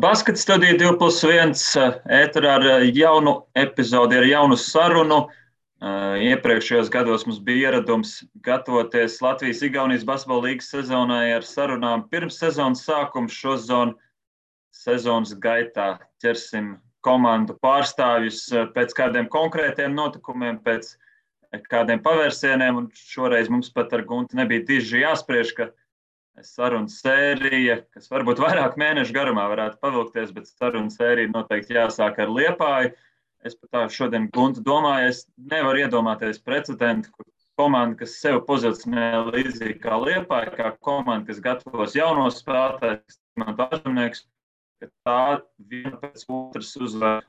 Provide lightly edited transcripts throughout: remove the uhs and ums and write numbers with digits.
Baskets studija 2+1 ēterā ar jaunu epizodi, ar jaunu sarunu. Iepriekšējos gados mums bija ieradums gatavoties Latvijas-Igaunijas basketbola līgas sezonai ar sarunām pirms sezonas sākuma. Šozon sezonas gaitā ķersim komandu pārstāvjus pēc kādiem konkrētiem notikumiem, pēc kādiem pavērsieniem. Un šoreiz mums pat ar Gunti nebija diži jāspriež, ka sarunu sērija, kas varbūt vairāk mēnešu garumā varētu pavilkties, bet sarunu sērija noteikti jāsāk ar Liepāju. Es pat tā šodien Guntu domāju, es nevaru iedomāties precedentu, kur komanda, kas sev pozicionē līdzīgi kā Liepāja, kā komanda, kas gatavos jaunos spēlētājus, ka tā viena pēc otras uzvar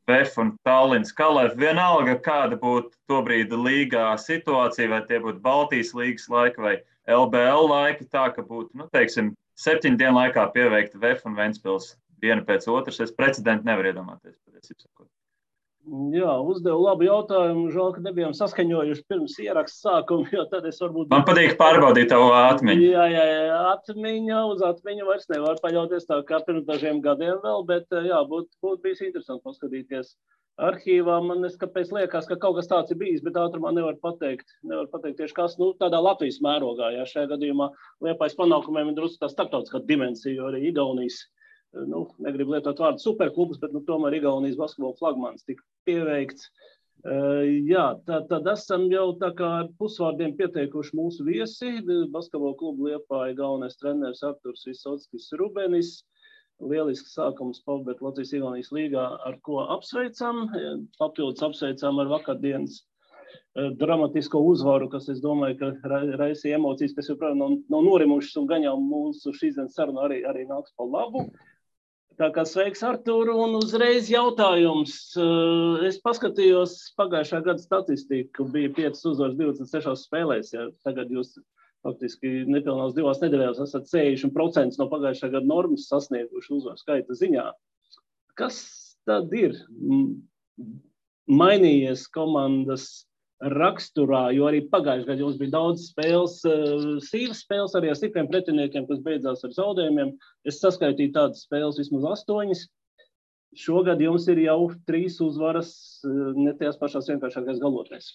VF un Tallinas Kalef. Vienalga, kāda būtu tobrīd līgā situācija, vai tie būtu Baltijas līgas laika vai LBL laika, tā ka būtu, 7 dienu laikā pieveikta VF un Ventspils viena pēc otras. Es precedentu nevaru iedomāties. Jā, uzdevu labu jautājumu. Žēl, ka nebijām saskaņojuši pirms ieraksta sākuma, jo tad es varbūt... Man patīk pārbaudīt tavu atmiņu. Jā, uz atmiņu vairs nevar paļauties tā kā pirms dažiem gadiem vēl, bet jā, būtu bijis interesanti paskatīties arhīvā. Man kāpēc liekas, ka kaut kas tāds ir bijis, bet ātrumā nevar pateikt tieši kas, tādā Latvijas mērogā. Jā, šajā gadījumā Liepājas panākumiem ir drusku tā starptautiskā dimensija, jo arī Igaunijas, negribu lietot vārdu superklubus, bet tomēr Igaunijas basketbola flagmanis tika pieveikts. Jā, tad esam jau tā kā ar pusvārdiem pieteikuši mūsu viesi. Basketbola klubu Liepāja galvenais treneris Arturs Visockis Rubenis. Lielisks sākums pavadīt Latvijas-Igaunijas līgā, ar ko apsveicam. Papildus apsveicam ar vakardienas dramatisko uzvaru, kas, es domāju, ka raisīja emocijas, kas joprojām nav norimušas un gan jau mūsu šīsdienas saruna arī nāks pa labu. Tā kā sveiks, Artur, un uzreiz jautājums. Es paskatījos pagājušā gada statistiku, bija 5 uzvaras 26 spēlēs, ja tagad jūs faktiski nepilnās 2 nedēļās esat 60% no pagājušā gada normas sasnieguši uzvaru skaita ziņā. Kas tad ir mainījies komandas raksturā, jo arī pagājušajā gadā jums bija daudz spēles, sīvas spēles arī ar stipriem pretiniekiem, kas beidzās ar zaudējumiem. Es saskaitīju tādas spēles vismaz 8. Šogad jums ir jau 3 uzvaras ne tajās pašās vienkāršākais galotnēs.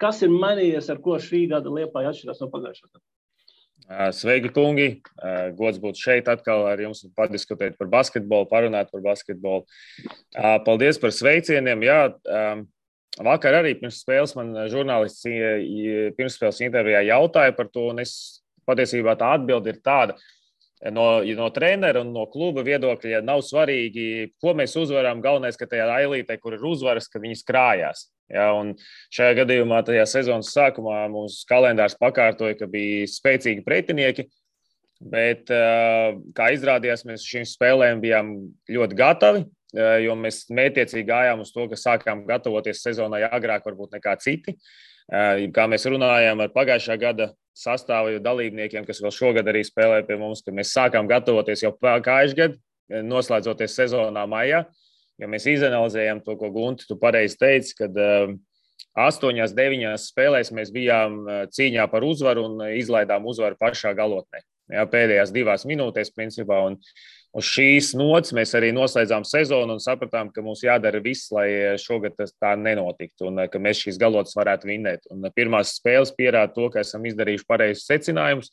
Kas ir mainījies, ar ko šī gada Liepāja atšķirās no pagājušā gada? Sveiki, kungi! Gods būt šeit atkal ar jums un padiskutēt par basketbolu, parunāt par basketbolu. Paldies par sveicieniem. Jā, vakar arī pirms spēles man žurnālists pirmsspēles intervijā jautāja par to, un es patiesībā tā atbilde ir tāda. No trenera un no kluba viedokļa nav svarīgi, ko mēs uzvaram. Galvenais, ka tajā ailītē, kur ir uzvaras, ka viņas krājās. Ja, un šajā gadījumā tajā sezonas sākumā mūsu kalendārs pakārtoja, ka bija spēcīgi pretinieki, bet, kā izrādījās, mēs šīm spēlēm bijām ļoti gatavi, jo mēs mētiecīgi gājām uz to, ka sākām gatavoties sezonai agrāk varbūt nekā citi. Kā mēs runājām ar pagājušā gada sastāvu dalībniekiem, kas vēl šogad arī spēlē pie mums, ka mēs sākām gatavoties jau pagājušajā gadā, noslēdzoties sezonā maijā, jo mēs izanalizējām to, ko Gunti, tu pareizi teici, kad 8-9 spēlēs mēs bijām cīņā par uzvaru un izlaidām uzvaru pašā galotnē. Jā, pēdējās 2 minūtēs, principā, un uz šīs nots mēs arī noslēdzām sezonu un sapratām, ka mums jādara viss, lai šogad tas tā nenotiktu un ka mēs šīs galotas varētu vinnēt. Un pirmās spēles pierāda to, ka esam izdarījuši pareizus secinājumus.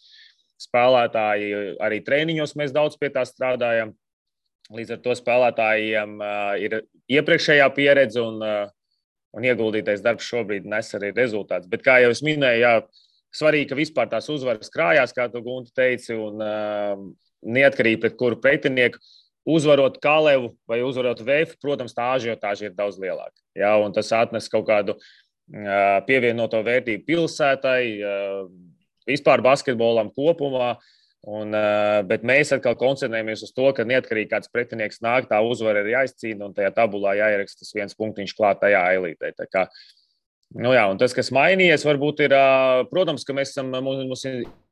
Spēlētāji arī treniņos mēs daudz pie tā strādājam. Līdz ar to spēlētājiem ir iepriekšējā pieredze un ieguldītais darbs šobrīd nes arī rezultāts. Bet, kā jau es minēju, jā, svarīgi, ka vispār tās uzvaras krājās, kā tu, Gunti, teici, un neatkarīgi pret kuru pretinieku, uzvarot Kalevu vai uzvarot VF, protams, tā ažiotāža ir daudz lielāka. Jā, un tas atnes kaut kādu pievienoto vērtību pilsētai, vispār basketbolam kopumā, bet mēs atkal koncentrējamies uz to, ka neatkarīgi kāds pretinieks nāk, tā uzvara ir jāizcīna un tajā tabulā jāieraksta tas 1 punktiņš klāt tajā ailītē. Tā kā, jā, un tas, kas mainījies, varbūt ir, protams, ka mums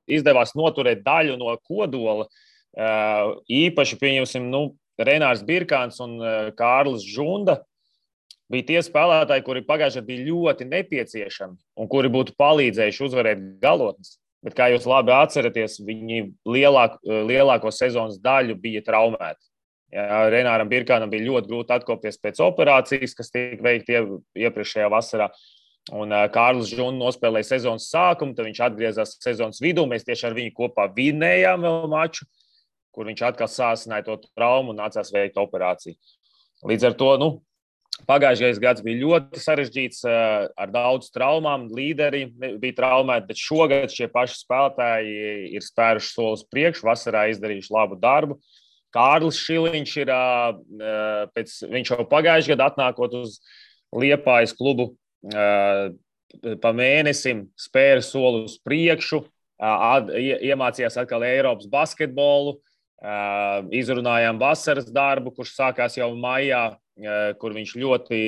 izdevās noturēt daļu no kodola. Īpaši, pieņemsim, Renārs Birkāns un Kārlis Žunda bija tie spēlētāji, kuri pagājušajā bija ļoti nepieciešami un kuri būtu palīdzējuši uzvarēt galotnes. Bet, kā jūs labi atceraties, viņi lielāko sezonas daļu bija traumēti. Jā, Renāram Birkānam bija ļoti grūti atkopties pēc operācijas, kas tika veikta iepriekšējā vasarā. Un Kārlis Žuns nospēlēja sezonas sākumu, tad viņš atgriezās sezonas vidū. Mēs tieši ar viņu kopā vinējām vēl maču, kur viņš atkal sāsināja to traumu un nācās veikt operāciju. Līdz ar to, pagājušais gads bija ļoti sarežģīts ar daudz traumām. Līderi bija traumēti, bet šogad šie paši spēlētāji ir spēruši solis priekšu, vasarā izdarījuši labu darbu. Kārlis Šiliņš viņš jau pagājušajā gadā atnākot uz Liepājas klubu pa mēnesim spēra soli uz priekšu, iemācījās atkal Eiropas basketbolu, izrunājām vasaras darbu, kurš sākās jau maijā, kur viņš ļoti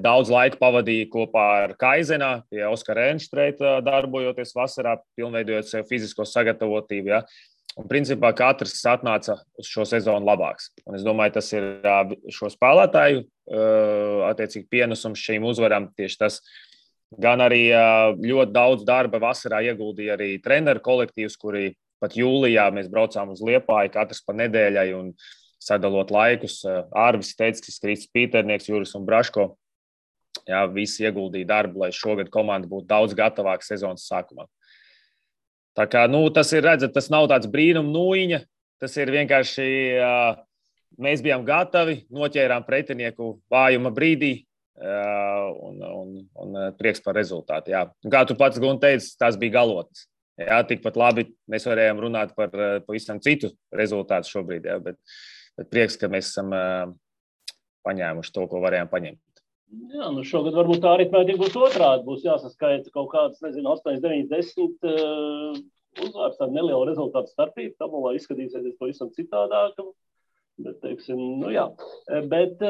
daudz laika pavadīja kopā ar Kaizenā, pie Oskara Enštreita darbojoties vasarā, pilnveidojot sev fizisko sagatavotību. Ja. Un principā katrs atnāca uz šo sezonu labāks. Un es domāju, tas ir šo spēlētāju attiecīgi pienesums šīm uzvarām. Tieši tas gan arī ļoti daudz darba vasarā ieguldīja arī treneru kolektīvs, kuri pat jūlijā mēs braucām uz Liepāju, katrs pa nedēļai un sadalot laikus. Ārvis Teickis, Kristis Pīternieks, Juris un Braško. Jā, visi ieguldīja darbu, lai šogad komanda būtu daudz gatavāka sezonas sākumā. Tā kā, tas ir, redzat, tas nav tāds brīnum nūjiņa, tas ir vienkārši, mēs bijām gatavi, noķērām pretinieku vājuma brīdī un prieks par rezultātu. Jā. Kā tu pats, Gun, teici, tās bija galotnes. Jā, tikpat labi mēs varējām runāt par pavisam citu rezultātu šobrīd, jā, bet prieks, ka mēs esam paņēmuši to, ko varējām paņemt. Jā, šogad varbūt tā aritmētika būs otrādi. Būs jāsaskaita kaut kādas, 8, 9, 10 uzvārds, tāda neliela rezultātu starpība. Tabulā izskatīsies pavisam citādāk. Bet, teiksim, jā. Bet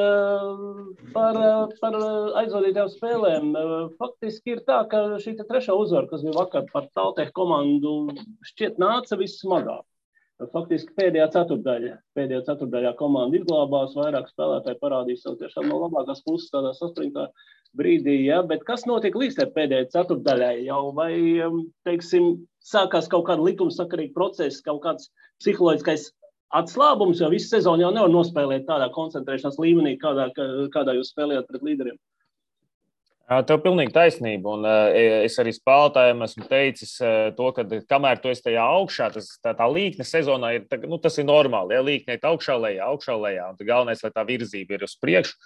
par aizvadītām spēlēm faktiski ir tā, ka šī trešā uzvara, kas bija vakar par Taltehu komandu, šķiet nāca vissmagāk. Faktiski pēdējā ceturtdaļā komanda izglābās, vairāk spēlētāji parādīja savu tiešām no labākās puses tādā saspringtā brīdī, ja? Bet kas notiek līdz pēdējai ceturtdaļai jau, vai, teiksim, sākās kaut kāda likumsakarīga procesa, kaut kāds psiholoģiskais atslābums, jo visu sezonu jau nevar nospēlēt tādā koncentrēšanās līmenī, kādā jūs spēlējat pret līderiem? Tev pilnīgi taisnība, un es arī spēlētājiem esmu teicis to, ka kamēr tu esi tajā augšā, tā līkne sezonā ir, tas ir normāli, ja līkne ir augšā lejā, un galvenais, lai tā virzība ir uz priekšu,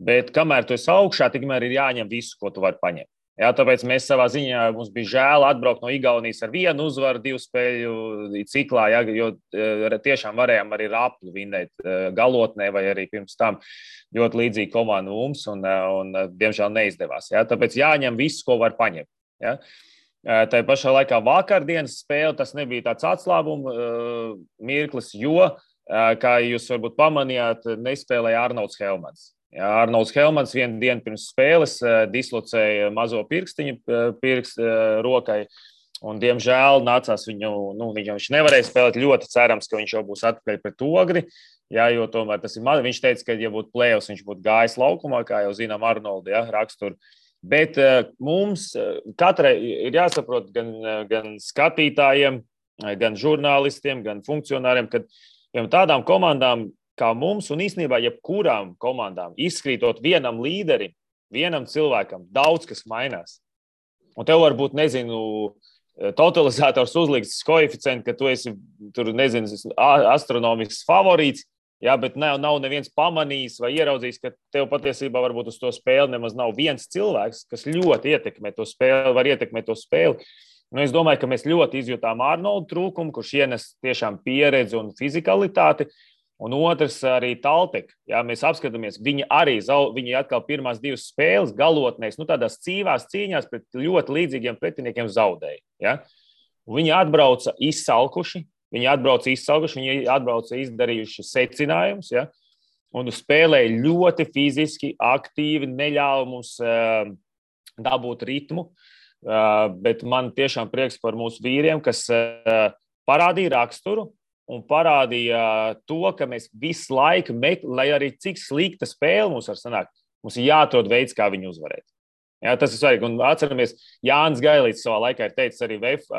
bet kamēr tu esi augšā, tikmēr ir jāņem visu, ko tu vari paņemt. Jā, tāpēc mēs savā ziņā, mums bija žēl atbraukt no Igaunijas ar vienu uzvaru, 2 spēļu ciklā, ja, jo tiešām varējām arī Raplu vinēt galotnē vai arī pirms tam ļoti līdzīgi komandu mums un diemžēl neizdevās. Ja. Tāpēc jāņem viss, ko var paņemt. Ja. Tā pašā laikā vakardienas spēle, tas nebija tāds atslābuma mirklis, jo, kā jūs varbūt pamanījāt, nespēlēja Arnolds Helmans. Jā, Arnolds Helmans vienu dienu pirms spēles dislocēja mazo pirkstiņu rokai, un, diemžēl, nācās viņš nevarēja spēlēt. Ļoti cerams, ka viņš jau būs atpakaļ pret Ogri, jā, jo tomēr tas ir viņš teica, ka, ja būtu play-offs, viņš būtu gājis laukumā, kā jau zinām Arnoldu, jā, raksturu. Bet mums katrai ir jāsaprot gan skatītājiem, gan žurnālistiem, gan funkcionāriem, ka tādām komandām, kā mums un īstenībā jebkurām komandām, izkrītot vienam līderim, vienam cilvēkam, daudz kas mainās. Un tev varbūt, totalizators uzliks koeficientu, ka tu esi, astronomisks favorīts, jā, bet nav neviens pamanījis vai ieraudzījis, ka tev patiesībā varbūt uz to spēli nemaz nav viens cilvēks, kas ļoti ietekmē to spēli, var ietekmēt to spēli. Es domāju, ka mēs ļoti izjūtām Arnoldu trūkumu, kurš ienes tiešām pieredzi un fizikalitāti. Un otrs arī Talteka. Jā, mēs apskatāmies, viņi atkal pirmās 2 spēles galotnēs, tādās cīvās cīņās pret ļoti līdzīgiem pretiniekiem zaudēja. Ja? Viņi atbrauca izsalkuši, viņi atbrauca izdarījuši secinājumus, ja? Un spēlēja ļoti fiziski, aktīvi, neļāva mums dabūt ritmu, bet man tiešām prieks par mūsu vīriem, kas parādīja raksturu, un parādīja to, ka mēs visu laiku, lai arī cik slikta spēle mums var sanākt, mums ir jāatrod veids, kā viņu uzvarēt. Jā, tas ir svarīgi. Un atceramies, Jānis Gailīts savā laikā ir teicis arī VF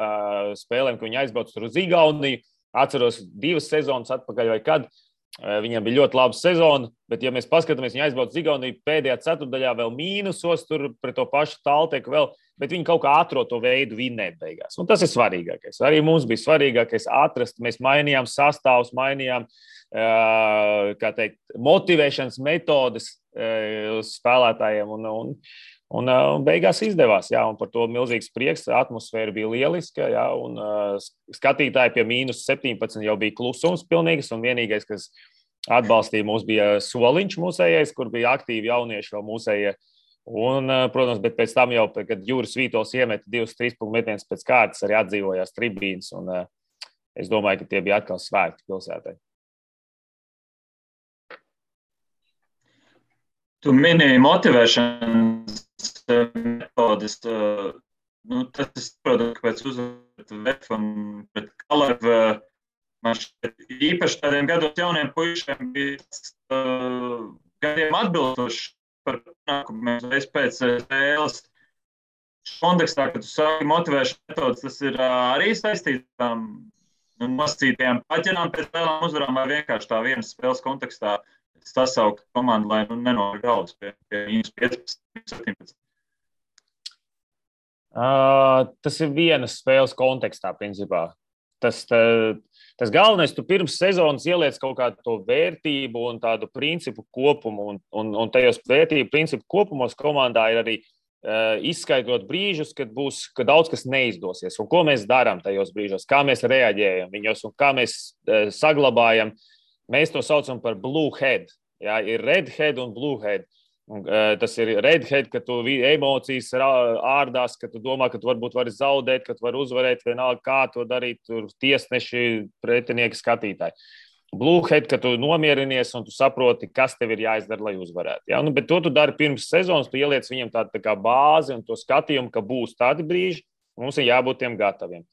spēlēm, ka viņi aizbrauc tur uz Igauniju. Atceros 2 sezonas atpakaļ vai kad. Viņam bija ļoti laba sezona, bet, ja mēs paskatāmies, viņi aizbrauc uz Igauniju pēdējā ceturdaļā vēl mīnusos, tur pret to pašu Talteku vēl, bet viņi kaut kā atrod to veidu vinnēt beigās. Un tas ir svarīgākais. Arī mums bija svarīgākais atrast. Mēs mainījām sastāvus, mainījām motivēšanas metodes uz spēlētājiem. Un beigās izdevās. Jā, un par to milzīgs prieks. Atmosfēra bija lieliska. Jā, un skatītāji pie -17 jau bija klusums pilnīgs. Un vienīgais, kas atbalstīja mūs, bija Soliņš mūsējais, kur bija aktīvi jaunieši vēl mūsējie. Un, protams, bet pēc tam jau, kad Juris Vītols iemeta 2-3 punktu metienus pēc kārtas, arī atdzīvojās tribīnes. Un es domāju, ka tie bija atkal svētki pilsētai. Tu minēji motivēšanas metodes. Tas ir, protams, pēc uzvaru VF un pret Kalevu. Man šķiet, īpaši tādiem gados jauniem puišiem bija gadiem atbilstoši par panākumiem reiz pēc spēles. Kontekstā, kad tu sāki motivēšanas metodes, tas ir arī saistītām nosacītajām paķenām pēc spēlēm uzvarām vai vienkārši tā vienas spēles kontekstā sasaukt komandu, lai nenor galvas pie -15, -17. Tas ir vienas spēles kontekstā, principā. Tas galvenais, tu pirms sezonas ieliec kaut kādu to vērtību un tādu principu kopumu, un tajos vērtību principu kopumos komandā ir arī izskaidrot brīžus, kad daudz kas neizdosies, un ko mēs darām tajos brīžos, kā mēs reaģējam viņos un kā mēs saglabājam. Mēs to saucam par blue head. Jā, ir red head un blue head. Tas ir red head, ka tu emocijas ārdās, ka tu domā, ka tu varbūt vari zaudēt, ka tu vari uzvarēt, vienalga kā to darīt, tur tiesneši, pretinieki, skatītāji. Blue head, ka tu nomierinies un tu saproti, kas tev ir jāizdara, lai uzvarētu. Ja? Bet to tu dari pirms sezonas, tu ieliec viņam tādu tā kā bāzi un to skatījumu, ka būs tādi brīži, mums ir jābūt tiem gataviem.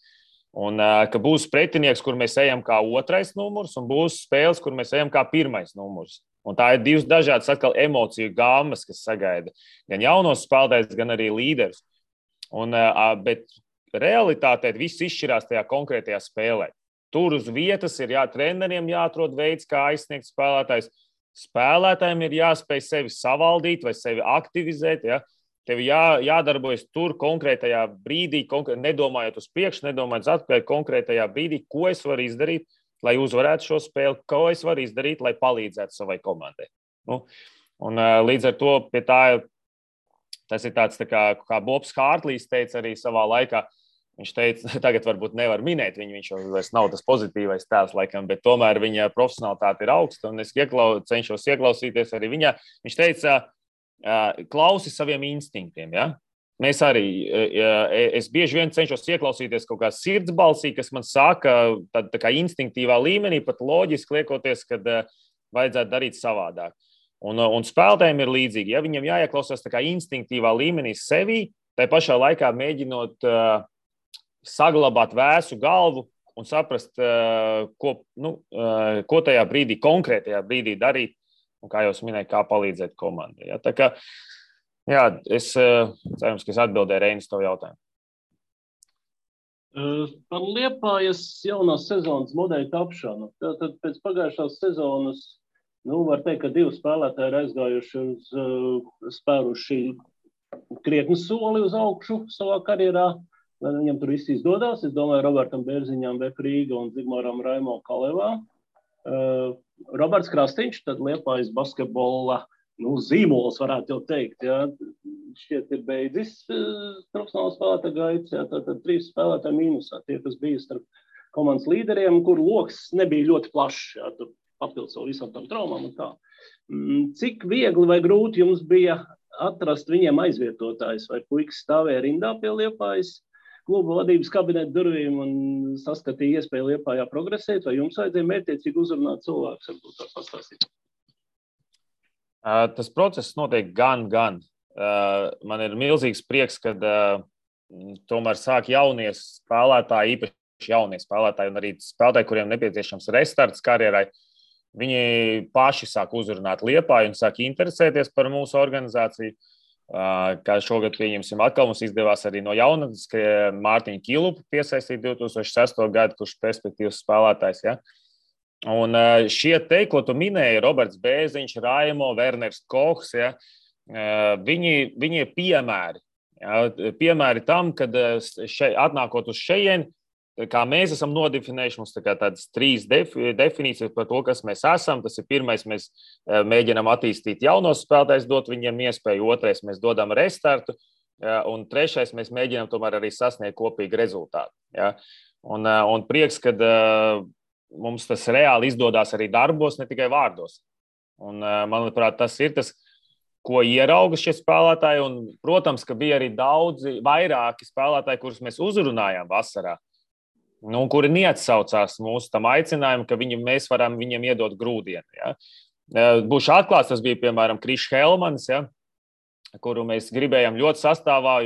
Un ka būs pretinieks, kur mēs ejam kā otrais numurs, un būs spēles, kur mēs ejam kā pirmais numurs. Un tā ir divas dažādas atkal emociju gāmas, kas sagaida gan jaunos spēlētājus, gan arī līderus. Bet realitātē viss izšķirās tajā konkrētajā spēlē. Tur uz vietas ir treneriem jāatrod veids, kā aizsniegt spēlētājs. Spēlētājiem ir jāspēj sevi savaldīt vai sevi aktivizēt. Ja? Tev jādarbojas tur konkrētajā brīdī, nedomājot uz priekšu, nedomājot uz atpakaļ konkrētajā brīdī, ko es varu izdarīt, lai uzvarētu šo spēli, ko es varu izdarīt, lai palīdzētu savai komandai. Līdz ar to pie tā, tas ir tāds tā kā Bobs Hārtlīs teica arī savā laikā. Viņš teica, tagad varbūt nevar minēt viņu, viņš jau vairs nav tas pozitīvais tēls laikam, bet tomēr viņa profesionalitāte ir augsta, un es cenšos ieklausīties arī viņā. Viņš teica, klausi saviem instinktiem, ja? Mēs arī, es bieži vien cenšos ieklausīties kaut kā sirdsbalsī, kas man saka, tā kā instinktīvā līmenī, pat loģiski liekoties, kad vajadzētu darīt savādāk. Un spēlētājiem ir līdzīgi, ja viņam jāieklausās tā kā instinktīvā līmenī sevī, tai pašā laikā mēģinot saglabāt vēsu galvu un saprast, ko tajā brīdī, konkrētajā brīdī darīt, un kā jau es minēju, kā palīdzēt komandai. Ja? Tā kā, jā, es cerams, ka es atbildēju Reinis to jautājumu. Par Liepājas jaunās sezonas modeļu tapšanu. Tad pēc pagājušās sezonas, var teikt, ka 2 spēlētāji ir aizgājuši spēruši krietni soli uz augšu savā karjerā. Lai viņam tur viss izdodās. Es domāju, Robertam Bērziņām, VF Rīga un Zigmāram Raimo Kalevā. Roberts Krastiņš, tad Liepājas basketbola zīmols, varētu jau teikt. Ja. Šķiet ir beidzis profesionāls spēlētāju gaitas. Ja. Tad 3 spēlētāji mīnusā. Tie, kas bija starp komandas līderiem, kur loks nebija ļoti plašs. Ja. Tur papildus vēl visam tam traumām un tā. Cik viegli vai grūti jums bija atrast viņiem aizvietotājs? Vai puikas stāvēja rindā pie Liepājas kluba vadības kabineta durvīm un saskatīja iespēju Liepājā progresēt, vai jums vajadzēja mērķiecīgi uzrunāt cilvēkus, varbūt tā pastāstīt? Tas process notiek gan. Man ir milzīgs prieks, kad tomēr sāk jaunie spēlētāji, īpaši jaunie spēlētāji un arī spēlētāji, kuriem nepieciešams restarts karjerai, viņi paši sāk uzrunāt Liepāju un sāk interesēties par mūsu organizāciju. Kā šogad, pieņemsim, atkal mums izdevās arī no jaunatnes, ka Mārtiņu Kilupu piesaistīt 2006. gadu, kurš perspektīvas spēlētājs. Ja? Un šie te, ko tu minēji, Roberts Bēziņš, Raimo, Werners Kohs, ja, viņi ir piemēri. Ja, piemēri tam, kad atnākot uz šejieni, kā mēs esam nodefinējuši, mums tādas 3 definīcijas par to, kas mēs esam. Tas ir pirmais, mēs mēģinām attīstīt jaunos spēlētājus, dot viņiem iespēju. Otrais, mēs dodam restartu. Un trešais, mēs mēģinām tomēr arī sasniegt kopīgu rezultātu. Ja. Un prieks, kad mums tas reāli izdodās arī darbos, ne tikai vārdos. Un, manuprāt, tas ir tas, ko ierauga šie spēlētāji. Un, protams, ka bija arī vairāki spēlētāji, kurus mēs uzrunājām vasarā, kuri neatsaucās mūsu tam aicinājumu, ka mēs varam viņiem iedot grūdienu. Ja. Būšu atklāts, tas bija, piemēram, Krišs Helmans, ja, kuru mēs gribējām ļoti sastāvā,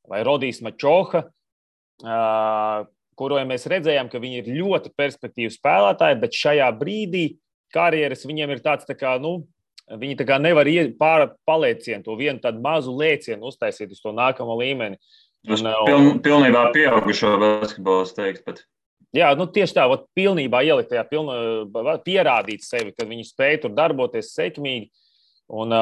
vai Rodijs Mačoha, kuru mēs redzējām, ka viņi ir ļoti perspektīvi spēlētāji, bet šajā brīdī karjeras viņiem ir tāds, viņi tā kā nevar paliecienu, to vienu tādu mazu lēcienu uztaisīt uz to nākamo līmeni. Pilnībā pieaugušo basketbolu, es teiktu pat. Jā, tieši tā, pilnībā ielikt tajā, pierādīt sevi, kad viņi spēj tur darboties sekmīgi. Un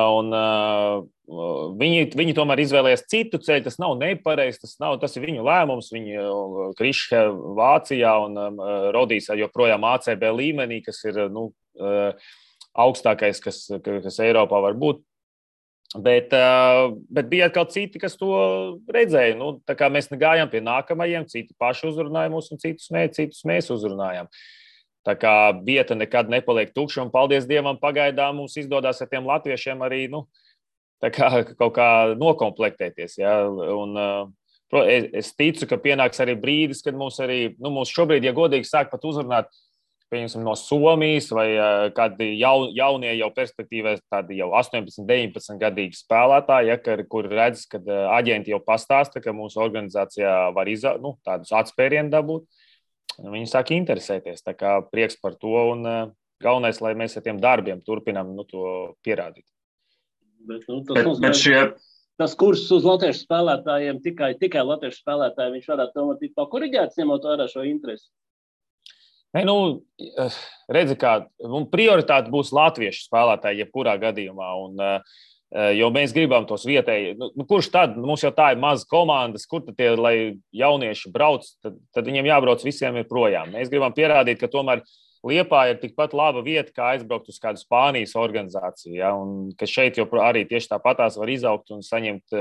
viņi tomēr izvēlējās citu ceļu. Tas nav nepareizi, tas ir viņu lēmums. Viņi Krišs Vācijā un Rodijs joprojām ACB līmenī, kas ir augstākais, kas Eiropā var būt. Bet bija atkal citi, kas to redzēja. Tā kā mēs gājām pie nākamajiem, citi paši uzrunāja mūs un citus mēs uzrunājām. Tā kā vieta nekad nepaliek tukša, un paldies Dievam, pagaidām mums izdodās ar tiem latviešiem arī kaut kā nokomplektēties. Ja? Un, es ticu, ka pienāks arī brīdis, kad mums šobrīd, ja godīgi sāk pat uzrunāt, pieņemsim, no Somijas vai kādi jaunie jau perspektīvē, tādi jau 18, 19 gadīgi spēlētāji, ja, kur redz, kad aģenti jau pastāsta, ka mūsu organizācijā var tādus atspērienu dabūt. Viņi sāk interesēties, tā kā prieks par to, un galvenais, lai mēs ar tiem darbiem turpinām to pierādīt. Tas kurs uz latviešu spēlētājiem, tikai latviešu spēlētāji, viņš varētu tomēr tikt pakoriģēts, ņemot vērā šo interesi? Redzi, kā prioritāte būs latviešu spēlētāji jebkurā gadījumā, jo mēs gribam tos vietēji. Kurš tad? Mums jau tā ir maza komandas, kur tad tie, lai jaunieši brauc, tad viņiem jābrauc visiem ir projām. Mēs gribam pierādīt, ka tomēr Liepāja ir tikpat laba vieta, kā aizbraukt uz kādu Spānijas organizāciju. Ja? Un ka šeit jau arī tieši tāpatās var izaugt un saņemt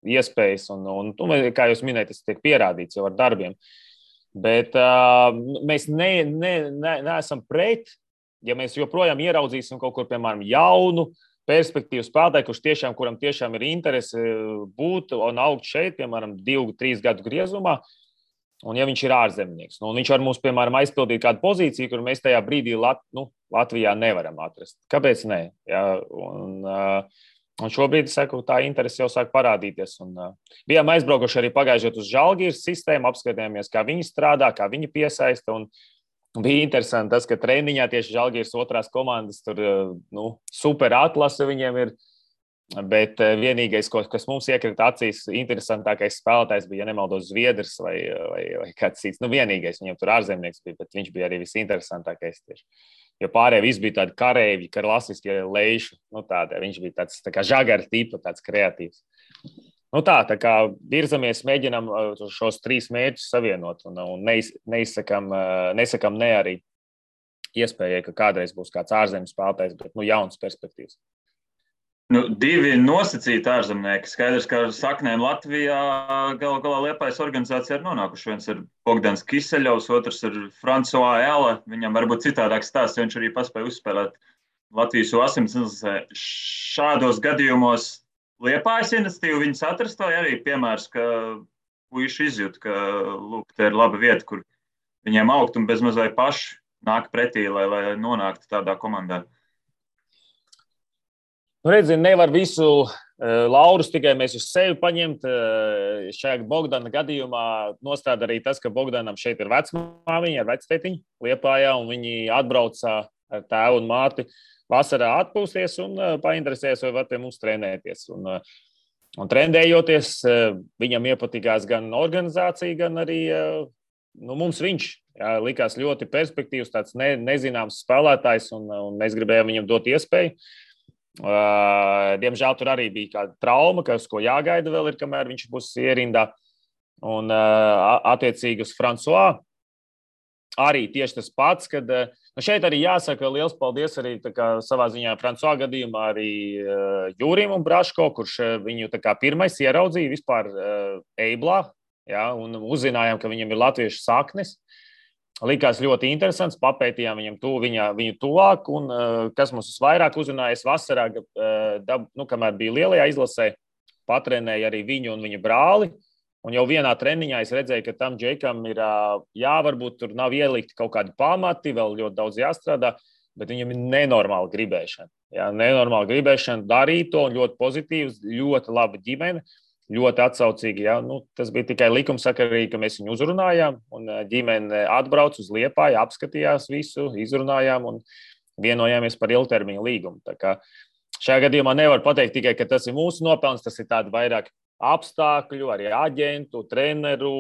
iespējas. Un kā jūs minējat, tas tiek pierādīts jau ar darbiem. Bet mēs neesam pret, ja mēs joprojām ieraudzīsim kaut kur, piemēram, jaunu, perspektīvu spēlētāju, kuram tiešām ir interese būt un augt šeit, piemēram, 2-3 gadu griezumā, un ja viņš ir ārzemnieks. Viņš var mums, piemēram, aizpildīt kādu pozīciju, kur mēs tajā brīdī Latvijā nevaram atrast. Kāpēc ne? Ja? Un šobrīd, saku, tā interese jau sāk parādīties. Bijām aizbraukuši arī pagājušajā uz Žalgiras sistēmu, apskatījāmies, kā viņi strādā, kā viņi piesaista, un bija interesanti tas, ka treniņā tieši Žalgiras otrās komandas tur super atlase viņiem ir, bet vienīgais, kas mums iekrita acīs, interesantākais spēlētājs bija, ja nemaldos, Zviedrs vai kāds cits. Vienīgais viņam tur ārzemnieks bija, bet viņš bija arī visinteresantākais tieši. Jo pārējie visi bija tādi karēvi, klasiskie leiši, viņš bija tāds tā kā žagara tipa, tāds kreatīvs. Tā kā virzamies, mēģinām šos 3 mērķus savienot un neizsakam ne arī iespējai, ka kādreiz būs kāds ārzemes spēlētājs, bet jauns perspektīvs. 2 nosacīti ārzemnieki. Skaidrs, ka ar saknēm Latvijā galā Liepājas organizācija ir nonākuši. Viens ir Bogdans Kiseļovs, otrs ir Francois Ela. Viņam varbūt citādāk stāsts, jo viņš arī paspēja uzspēlēt Latvijas U18. Šādos gadījumos Liepājas iniciatīva viņus atrast, vai arī piemērs, ka puiši izjūt, ka te ir laba vieta, kur viņiem augt un bezmaz vai paši nāk pretī, lai nonāktu tādā komandā. Redzi, nevar visu laurus tikai mēs uz sevi paņemt. Šajā Bogdana gadījumā nostāda arī tas, ka Bogdanam šeit ir vecmāmiņa ar vectētiņu Liepājā, un viņi atbrauca ar tēvu un māti vasarā atpūsties un painteresēs, vai var pie mums trenēties. Un trendējoties, viņam iepatikās gan organizācija, gan arī mums viņš. Jā, likās ļoti perspektīvs, tāds nezināms spēlētājs, un mēs gribējām viņam dot iespēju. Diemžēl tur arī bija kāda trauma, ko jāgaida vēl ir, kamēr viņš būs ierindā. Un attiecīgi uz François arī tieši tas pats, kad šeit arī jāsaka liels paldies arī savā ziņā François gadījumā arī Jūrim un Braško, kurš viņu pirmais ieraudzīja vispār Eiblā, jā, un uzzinājām, ka viņam ir latviešu saknes. Likās ļoti interesants, papētījām viņu tuvāk, un kas mums vairāk uzrunājas vasarā, kamēr bija lielajā izlasē, patrenēja arī viņu un viņa brāli, un jau vienā treniņā es redzēju, ka tam Džekam ir, varbūt tur nav ielikti kaut kādi pamati, vēl ļoti daudz jāstrādā, bet viņam ir nenormāla gribēšana. Jā, nenormāla gribēšana darīt to, un ļoti pozitīvs, ļoti laba ģimene. Ļoti atsaucīgi. Ja? Tas bija tikai likumsakarīgi, ka mēs viņu uzrunājām, un ģimene atbrauca uz Liepāju, apskatījās visu, izrunājām un vienojāmies par ilgtermiņa līgumu. Tā kā šajā gadījumā nevar pateikt tikai, ka tas ir mūsu nopelns, tas ir tādi vairāk apstākļu, arī aģentu, treneru,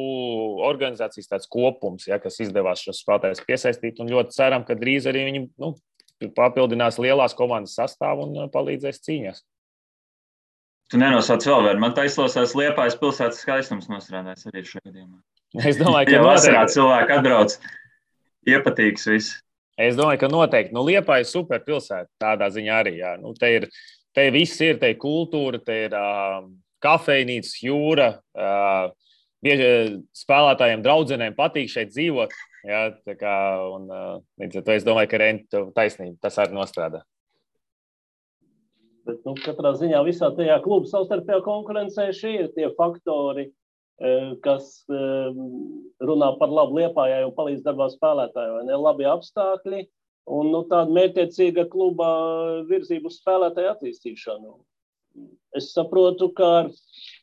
organizācijas tāds kopums, ja, kas izdevās šos spēlētājus piesaistīt, un ļoti ceram, ka drīz arī viņi papildinās lielās komandas sastāvu un palīdzēs cīņās. Tu nenosauc vēl vienu. Man taisnās Liepājas pilsētas skaistums nostrādājas arī šajā gadījumā. Es domāju, ka vasarā cilvēki atbrauc, iepatīks viss. Es domāju, ka noteikti. Liepāja ir super pilsēta tādā ziņā arī. Jā. Te viss ir, te ir kultūra, te ir kafejnīcas, jūra. Spēlētājiem, draudzenēm patīk šeit dzīvot. Jā, līdz ar to es domāju, ka Renti taisnība, tas arī nostrādā. Bet, katrā ziņā visā tajā klubu savstarpējā konkurencē šie ir tie faktori, kas runā par labu Liepājai un palīdz darbā spēlētāju. Vai ne? Labi apstākļi un tāda mērķtiecīga kluba virzību uz spēlētāju attīstīšanu. Es saprotu, ka ar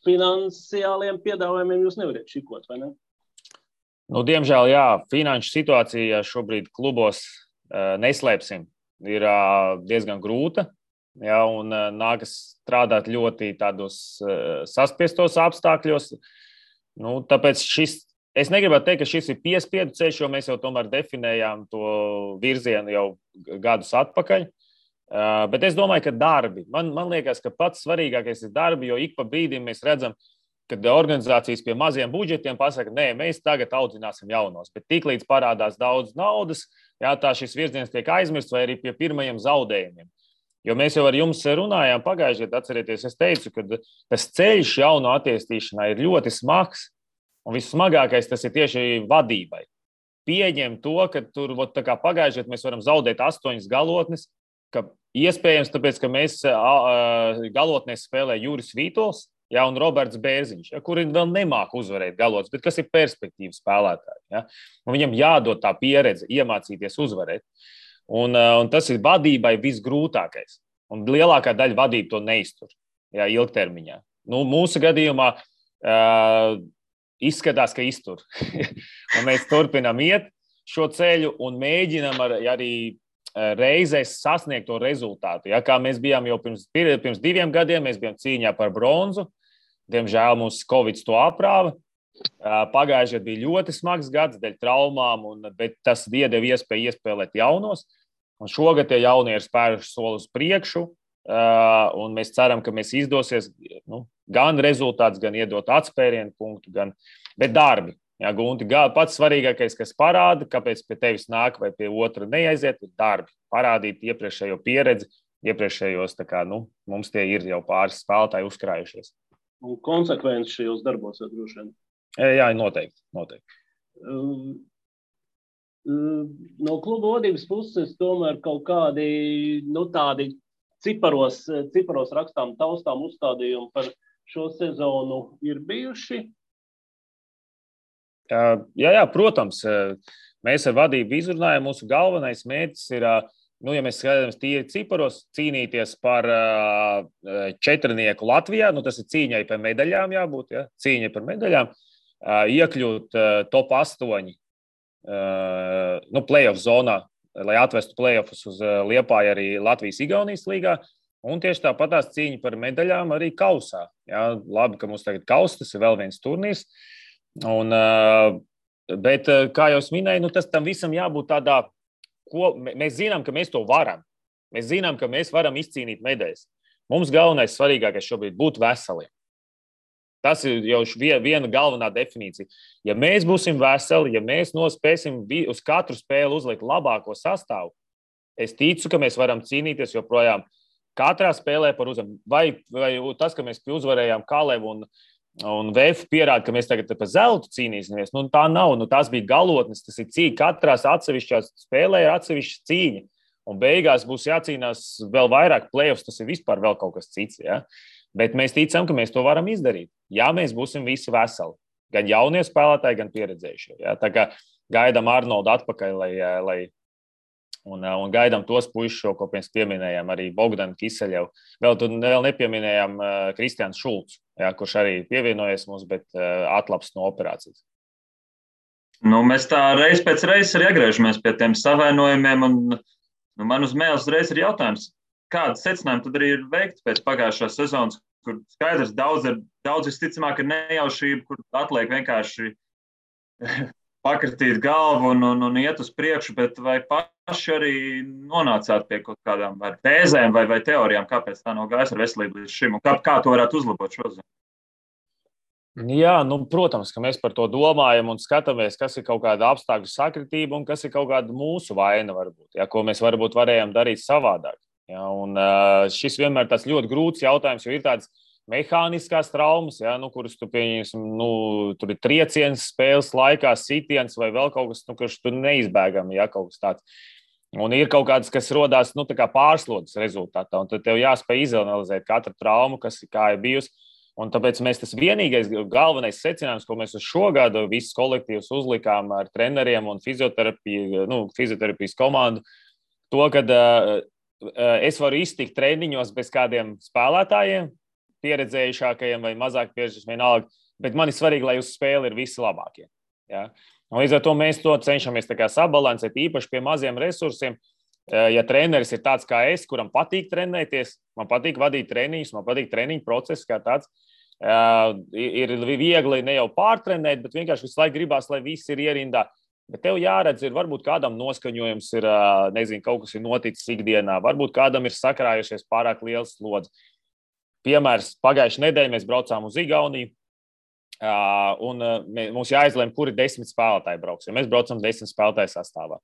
finansiāliem piedāvājumiem jūs nevariet šikot, vai ne? Diemžēl, jā, finanšu situācija šobrīd klubos, neslēpsim, ir diezgan grūta. Ja, un nākas strādāt ļoti tādos saspiestos apstākļos. Tāpēc es negribētu teikt, ka šis ir piespiedu ceļš, jo mēs jau tomēr definējām to virzienu jau gadus atpakaļ. Bet es domāju, ka darbi. Man liekas, ka pats svarīgākais ir darbi, jo ik pa brīdim mēs redzam, kad organizācijas pie maziem budžetiem pasaka, nē, mēs tagad audzināsim jaunos. Bet tiklīdz parādās daudz naudas, jā, tā šis virziens tiek aizmirsts vai arī pie pirmajiem zaudējumiem. Jo mēs jau ar jums runājām pagājušajā gadā, atcerieties, es teicu, ka tas ceļš jauno attīstīšanā ir ļoti smags, un vissmagākais tas ir tieši vadībai. Pieņem to, ka tur pagājušajā gadā mēs varam zaudēt 8 galotnes, ka iespējams tāpēc, ka mēs galotnēs spēlē Juris Vītols, ja, un Roberts Bērziņš, ja, kuri vēl nemāk uzvarēt galotnes, bet kas ir perspektīvas spēlētāji. Ja, un viņam jādod tā pieredze, iemācīties uzvarēt. Un tas ir vadībai visgrūtākais. Un lielākā daļa vadība to neiztur, jā, ilgtermiņā. Mūsu gadījumā izskatās, ka iztur. Un mēs turpinām iet šo ceļu un mēģinām arī reizēs sasniegt to rezultātu. Ja, kā mēs bijām jau pirms 2 gadiem, mēs bijām cīņā par bronzu. Diemžēl mums Covid to aprāva. Pagājušajā bija ļoti smags gads dēļ traumām, bet tas iedeva iespēju iespēlēt jaunos. Un šogad tie jaunie ir spēruši soli uz priekšu, un mēs ceram, ka mēs izdosies gan rezultāts, gan iedot atspērienu punktu, bet darbi. Jā, Gunti, pats svarīgākais, kas parāda, kāpēc pie tevis nāk vai pie otra neaiziet, ir darbi. Parādīt iepriekšējo pieredzi, iepriekšējos, mums tie ir jau pāris spēlētāji uzkrājušies. Un konsekvenci šajos darbos jau droši vien. Jā, noteikti. No kluba vadības puses tomēr kaut kādi, tādi ciparos rakstām, taustām uzstādījumi par šo sezonu ir bijuši? Jā, protams. Mēs ar vadību izrunājam, mūsu galvenais mērķis ir, ja mēs skatāmies tīri ciparos, cīnīties par 4 Latvijā, tas ir cīņai par medaļām jābūt, ja? Cīņai par medaļām, iekļūt top 8 playoff zonā, lai atvestu playoffus uz Liepāju arī Latvijas-Igaunijas līgā, un tieši tāpat tās cīņa par medaļām arī kausā. Ja? Labi, ka mums tagad kaus, tas ir vēl viens turnīrs, un Bet, kā jau es minēju, tas tam visam jābūt tādā, ko mēs zinām, ka mēs to varam. Mēs zinām, ka mēs varam izcīnīt medaļas. Mums galvenais, svarīgākais šobrīd būt veseliem. Tas ir jau viena galvenā definīcija. Ja mēs būsim veseli, ja mēs nospēsim uz katru spēli uzlikt labāko sastāvu, es ticu, ka mēs varam cīnīties joprojām katrā spēlē par uzvaru. Vai tas, ka mēs uzvarējām Kalevu un VF pierāda, ka mēs tagad par zeltu cīnīsimies, tā nav. Tās bija galotnes, tas ir cīņa. Katrās atsevišķās spēlē ir atsevišķa cīņa. Un beigās būs jācīnās vēl vairāk play-offs, tas ir vispār vēl kaut kas cits. Ja? Bet mēs ticam, ka mēs to varam izdarīt. Ja mēs būsim visi veseli. Gan jaunie spēlētāji, gan pieredzējušie. Ja? Tā kā gaidām Arnoldu atpakaļ, un gaidām tos puišus, ko mēs pieminējām, arī Bogdanu Kiseļevu. Vēl nepieminējām Kristiāns Šulcs, ja, kurš arī pievienojies mums, bet atlaps no operācijas. Mēs tā reiz pēc reizes arī atgriežamies pie tiem savainojumiem, un man uz mēles reiz ir jautājums, kāda secinājuma tad arī ir veikta pēc pagājušās sezonas, kur skaidrs daudz visticamāk ir nejaušība, kur atliek vienkārši pakratīt galvu un iet uz priekšu, bet vai paši arī nonācāt pie kaut kādām vai tēzēm vai teorijām, kāpēc tā nav gājis ar veselību līdz šim, un kā to varētu uzlabot šodien? Jā, protams, ka mēs par to domājam un skatāmies, kas ir kaut kāda apstākļu sakritība un kas ir kaut kāda mūsu vaina varbūt, ja, ko mēs varbūt varējām darīt savādāk. Ja, un šis vienmēr tāds ļoti grūts jautājums, jo ir tādas mehāniskās traumas, ja, kuras tu pieņemsim, tur ir trieciens spēles laikā, sitiens vai vēl kaut kas, kurš tur neizbēgami, ja, kaut kas tāds. Un ir kaut kādas, kas rodās, tā kā pārslodzes rezultātā, un tad tev jāspēj izanalizēt katru traumu, kā ir bijusi. Un tāpēc mēs tas vienīgais galvenais secinājums, ko mēs uz šo gadu visus kolektīvus uzlikām ar treneriem un fizioterapijas komandu, to, kad es varu iztikt treniņos bez kādiem spēlētājiem, pieredzējušākajiem vai mazāk pieredzējušiem vienalga, bet man ir svarīgi, lai uz spēli ir visi labākie. Ja? Un līdz ar to mēs to cenšamies tā kā sabalansēt, īpaši pie maziem resursiem. Ja treneris ir tāds kā es, kuram patīk trenēties, man patīk vadīt treniņus, man patīk treniņu process kā tāds, ir viegli ne jau pārtrenēt, bet vienkārši visu laiku gribās, lai viss ir ierindā. Bet tev jāredz, ir varbūt kādam noskaņojums ir, nezinu, kaut kas ir noticis ikdienā, varbūt kādam ir sakrājušies pārāk liels slodzi. Piemērs, pagājušajā nedēļā mēs braucām uz Igauniju, un mums jāizlēma, kuri 10 spēlētāji brauks, ja mēs braucam 10 spēlētāju sastāvā.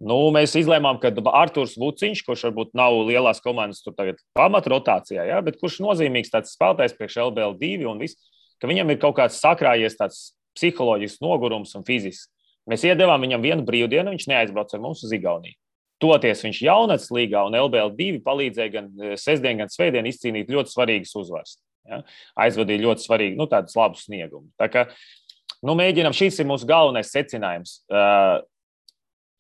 Mēs izlēmām, ka Arturs Vuciņš, kurš varbūt nav lielās komandas tur tagad pamatrotācijā, ja, bet kurš nozīmīgs tāds spēlētājs priekš LBL2 un viss, ka viņam ir kaut kāds sakrājies tāds psiholoģisks nogurums un fizisks. Mēs iedevām viņam vienu brīvdienu, viņš neaizbrauca ar mums uz Igauniju. Toties viņš jaunatnes līgā un LBL2 palīdzēja gan sestdien, gan svētdien izcīnīt ļoti svarīgas uzvaras. Ja. Aizvadīja ļoti svarīgi, tādus labus sniegumus. Tā kā, mēģinām, šis ir mūsu galvenais secinājums.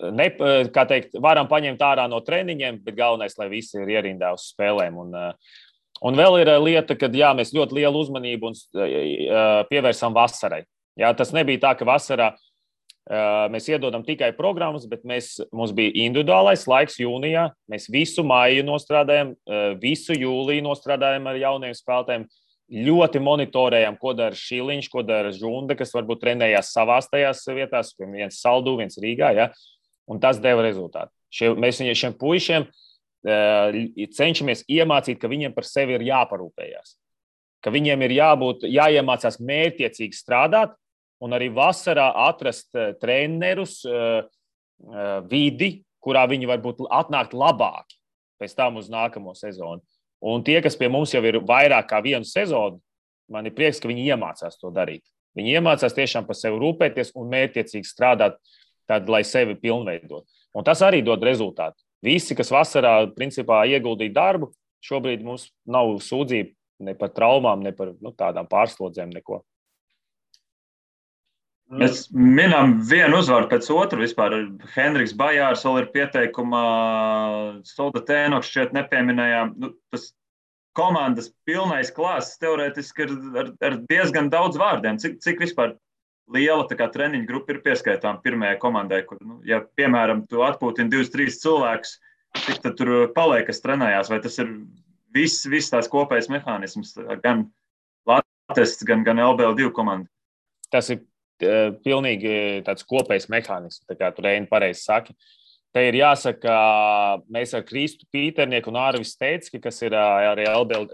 Kā teikt, varam paņemt ārā no treniņiem, bet galvenais, lai visi ir ierindā uz spēlēm. Un vēl ir lieta, ka jā, mēs ļoti lielu uzmanību pievērsām vasarai. Jā, tas nebija tā, ka vasarā mēs iedodam tikai programmas, bet mums bija individuālais laiks jūnijā. Mēs visu maiju nostrādājam, visu jūliju nostrādājam ar jauniem spēlētājiem. Ļoti monitorējam, ko dara Šiliņš, ko dara Žunda, kas varbūt trenējās savās tajās vietās, viens Saldū, viens Rīgā, ja? Un tas deva rezultātu. Mēs šiem puišiem cenšamies iemācīt, ka viņiem par sevi ir jāparūpējās, ka viņiem ir jāiemācās mērķiecīgi strādāt un arī vasarā atrast trenerus vidi, kurā viņi varbūt atnākt labāki pēc tam uz nākamo sezonu. Un tie, kas pie mums jau ir vairāk kā vienu sezonu, man ir prieks, ka viņi iemācās to darīt. Viņi iemācās tiešām par sevi rūpēties un mērķiecīgi strādāt, tad, lai sevi pilnveidot. Un tas arī dod rezultātu. Visi, kas vasarā principā ieguldīja darbu, šobrīd mums nav sūdzība ne par traumām, ne par tādām pārslodzēm, neko. Mēs minam vienu uzvaru pēc otru vispār. Henriks Bajārs vēl ir pieteikumā, Solda Tēnoks šķiet nepieminējām. Tas komandas pilnais klāsts teorētiski ir ar diezgan daudz vārdiem. Cik vispār liela treniņu grupa ir pieskaitām pirmajai komandai, kur, ja, piemēram, tu atpūtini 2-3 cilvēkus, cik tad tur paliek, kas trenējās, vai tas ir viss tās kopējais mehānisms, gan Latvijas, gan LBL2 komanda? Tas ir pilnīgi tāds kopējs mehānisms, tā kā tu Reini pareizi saki. Te ir jāsaka, mēs ar Kristu Pīternieku un Ārvis Stecki, kas ir arī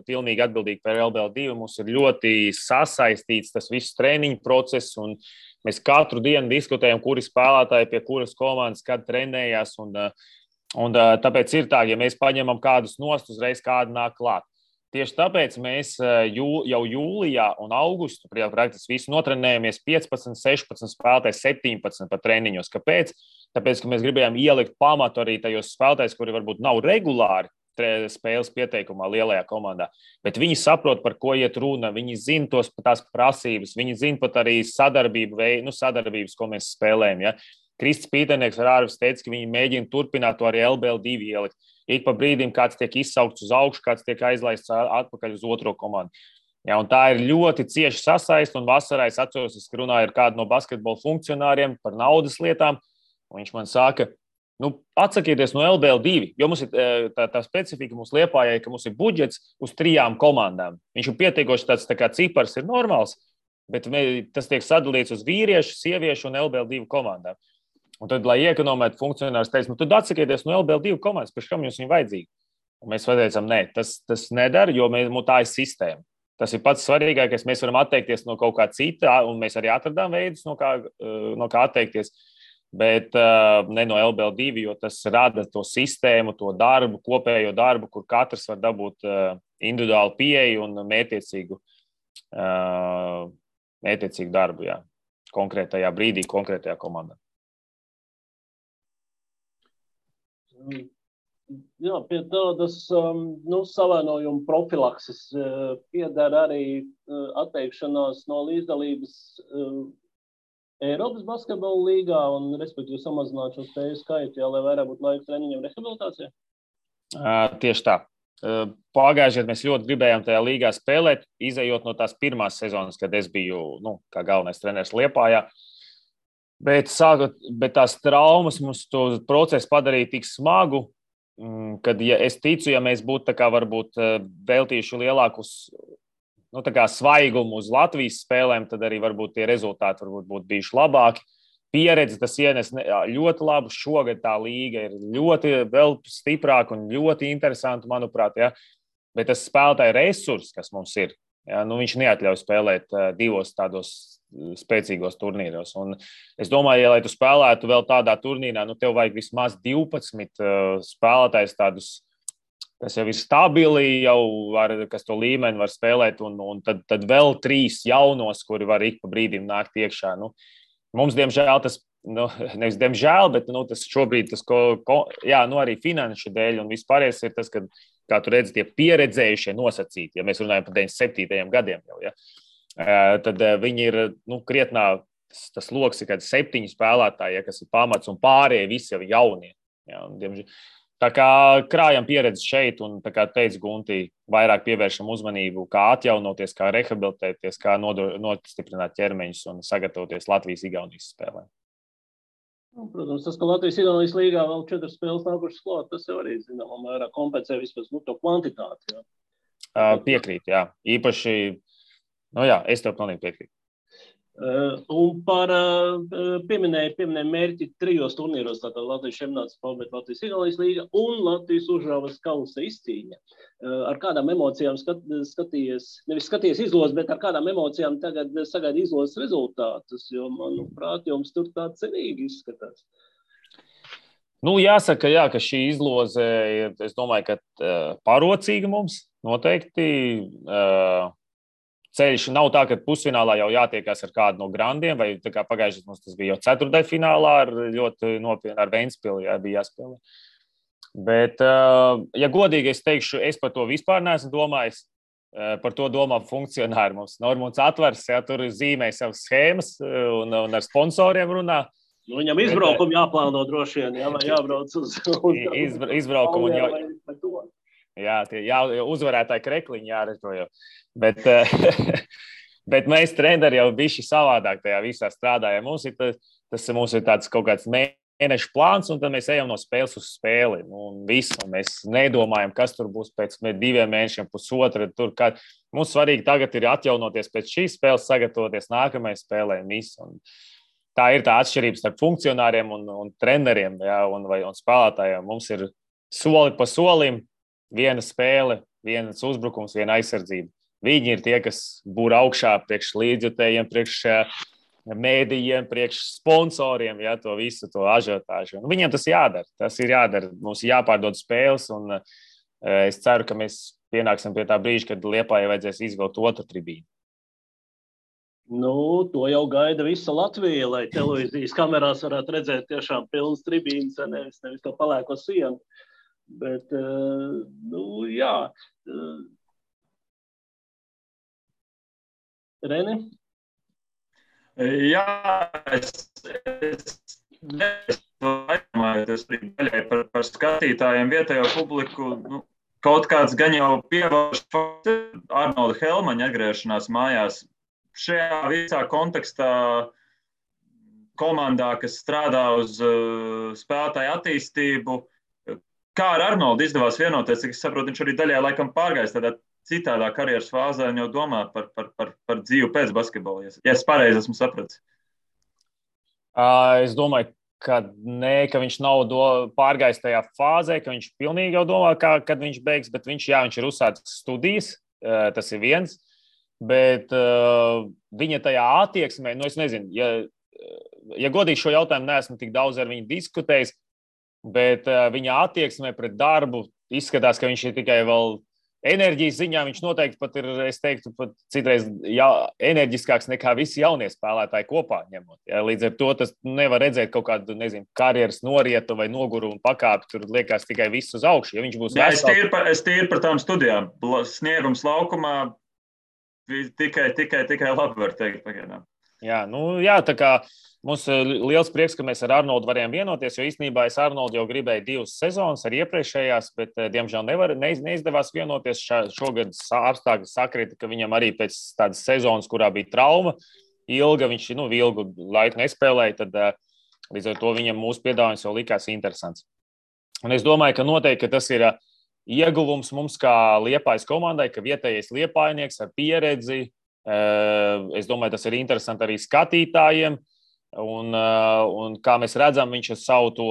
pilnīgi atbildīgi par LBL2, mums ir ļoti sasaistīts tas viss treniņu process, un mēs katru dienu diskutējam, kuri spēlētāji pie kuras komandas, kad trenējās, un tāpēc ir tā, ja mēs paņemam kādus nost, uzreiz kādu nāk klāt. Tieši tāpēc mēs jau jūlijā un augustā praktiski visi notrenējamies 15, 16 spēlētājs, 17 pat treniņos. Kāpēc? Tāpēc, ka mēs gribējām ielikt pamatu arī tajos spēlētājos, kuri varbūt nav regulāri spēles pieteikumā lielajā komandā, bet viņi saprot, par ko iet runa, viņi zina tās prasības, viņi zina pat arī sadarbības, ko mēs spēlējam. Ja? Krists Pīternieks ar Ārvis teica, ka viņi mēģina turpināt to arī LBL2 ielikt. Ik pa brīdim kāds tiek izsaukts uz augšu, kāds tiek aizlaists atpakaļ uz otro komandu. Ja, un tā ir ļoti cieši sasaist, un vasarā es atceros, es runāju ar kādu no basketbola funkcionāriem par naudas lietām, un viņš man saka, atsakieties no LBL2, jo mums ir tā specifika mums Liepājai, ka mums ir budžets uz 3 komandām. Viņš ir pietiekoši tāds tā kā cipars ir normāls, bet tas tiek sadalīts uz vīriešu, sieviešu un LBL2 komandām. Un tad, lai iekonomētu, funkcionārs teica, tad atsakieties no LBL2 komandas, pēc kam jums viņa vajadzīga. Un mēs teicām, nē, tas nedara, jo tā ir sistēma. Tas ir pats svarīgākais, mēs varam atteikties no kaut kā cita, un mēs arī atradām veidus, no kā atteikties, bet ne no LBL2, jo tas rada to sistēmu, to darbu, kopējo darbu, kur katrs var dabūt individuālu pieeju un mērķiecīgu darbu, jā, konkrētajā brīdī, konkrētajā komandā. Jā, pie tādas savainojuma profilakses piedara arī atteikšanās no līdzdalības Eiropas basketbola līgā un, respektīvi, samazināt šo spēju skaitu, lai vairāk būtu laika treniņiem rehabilitācijā? Tieši tā. Pagājušajā gadā mēs ļoti gribējām tajā līgā spēlēt, izejot no tās pirmās sezonas, kad es biju kā galvenais treneris Liepājā. Bet tās traumas mums to procesu padarīja tik smagu, kad es ticu, ja mēs būtu varbūt veltījuši lielākus svaigumu uz Latvijas spēlēm, tad arī varbūt tie rezultāti būtu bijuši labāki. Pieredze tas ienes ļoti labu. Šogad tā līga ir ļoti vēl stiprāka un ļoti interesanta, manuprāt. Ja? Bet tas spēlētāju resurs, kas mums ir, ja? Viņš neatļauj spēlēt 2 tādos spēcīgos turnīros. Un es domāju, ja lai tu spēlētu vēl tādā turnīrā, tev vajag vismaz 12 spēlētājs tādus, kas jau ir stabili, kas to līmeni var spēlēt, un tad vēl 3 jaunos, kuri var ik pa brīdim nākt iekšā. Mums, diemžēl, tas, nevis diemžēl, bet tas šobrīd, arī finanšu dēļ un vispārējais ir tas, ka, kā tu redzi, tie pieredzējušie nosacīti, ja mēs runājam par 97. gadiem jau, ja, tad viņi ir, krietnā, tas loks ir kādi 7 spēlētāji, ja, kas ir pamats, un pārējie visi jau jaunie. Ja, tā kā krājam pieredzi šeit, un tā kā teica Gunti, vairāk pievēršam uzmanību, kā atjaunoties, kā rehabilitēties, kā nostiprināt ķermeņus un sagatavoties Latvijas-Igaunijas spēlē. Protams, tas, ka Latvijas-Igaunijas līgā vēl 4 spēles nākušas klāt, tas jau arī, zināmā mērā, kompensē vispār to kvantitāti. Ja. Piekrīt, jā. Īpaši, es tev pilnīgi piekrītu. Un par pieminēju mērķi 3 turnīros, tātad Latvijas čempionāts, Latvijas-Igaunijas līga un Latvijas Užravas kausa izcīņa. Ar kādām emocijām skaties izlozes, bet ar kādām emocijām tagad sagaida izlozes rezultātus, jo, manuprāt, jums tur tā cerīgi izskatās. Jāsaka, ka šī izloze ir, es domāju, ka parocīga mums noteikti. Ceļš nav tā, ka pusfinālā jau jātiekās ar kādu no grandiem, vai tā kā pagājušajā mums tas bija jau ceturtdaļfinālā ar ļoti nopietnu ar Ventspili, bija jāspēlē. Bet, ja godīgi es teikšu, es par to vispār neesmu domājis, par to domā funkcionāri mums. Normons Atvers, tur zīmē savas schēmas un ar sponsoriem runā. Viņam izbraukumu jāplāno droši vien, vai jābrauc uz izbraukumu uzvarētāji krekliņi jārežo jau. Bet mēs treneri jau bišķi savādāk tajā visā strādājam. Mums ir tāds kaut kāds mēnešu plāns, un tad mēs ejam no spēles uz spēli. Un viss, un mēs nedomājam, kas tur būs pēc 2 mēnešiem, pusotra. Mums svarīgi tagad ir atjaunoties pēc šīs spēles, sagatavoties nākamajai spēlē. Tā ir tā atšķirība starp funkcionāriem un treneriem, ja, un spēlētājiem. Mums ir soli pa solim, viena spēle, viens uzbrukums, viena aizsardzība. Viņi ir tie, kas būr augšā priekš līdzjutējiem, priekš mēdījiem, priekš sponsoriem, ja, to visu, to ažiotāžu. Viņiem tas jādara. Tas ir jādara. Mums ir jāpārdod spēles, un es ceru, ka mēs pienāksim pie tā brīža, kad Liepājai vajadzēs izvilkt otru tribīnu. To jau gaida visa Latvija, lai televīzijas kamerās varētu redzēt tiešām pilnas tribīnas, nevis to palēko sienu. Bet, jā. Reni? Jā, es daļai par skatītājiem, vietējo publiku. Kaut kāds gan jau pievērš Arnolda Helmaņa atgriešanās mājās. Šajā visā kontekstā komandā, kas strādā uz spēlētāju attīstību, kā ar Arnoldu izdevās vienoties, cik es saprotu, viņš arī daļai laikam pārgājis tādā citādā karjeras fāzē un jau domā par dzīvi pēc basketbola, ja es pareizi esmu sapratis. Es domāju, ka viņš nav pārgājis tajā fāzē, ka viņš pilnīgi jau domā, kad viņš beigs, bet viņš ir uzsācis studijas, tas ir viens, bet viņa tajā attieksmē, es nezinu, ja godīgi šo jautājumu neesmu tik daudz ar viņu diskutējis, bet viņa attieksmē pret darbu izskatās, ka viņš ir tikai vēl enerģijas ziņā, viņš noteikti pat ir, es teiktu, pat citreiz enerģiskāks nekā visi jaunie spēlētāji kopā ņemot. Ja, līdz ar to tas nevar redzēt kaut kādu, karjeras norietu vai nogurumu pakāpi, tur liekas tikai viss uz augšu. Ja viņš būs vesels... Es tīri par tām studijām. Sniegums laukumā tikai labi var teikt pagaidām. Jā, tā kā mums liels prieks, ka mēs ar Arnoldu varējām vienoties, jo īstenībā es Arnoldu jau gribēju 2 sezonas ar iepriekšējās, bet diemžēl neizdevās vienoties. Šogad apstākļi sakrita, ka viņam arī pēc tādas sezonas, kurā bija trauma ilga, viņš ilgu laiku nespēlēja, tad līdz ar to viņam mūsu piedāvājums jau likās interesants. Un es domāju, ka noteikti ka tas ir ieguvums mums kā Liepājas komandai, ka vietējais liepājnieks ar pieredzi. Es domāju, tas ir interesanti arī skatītājiem. Un kā mēs redzam, viņš ar savu to,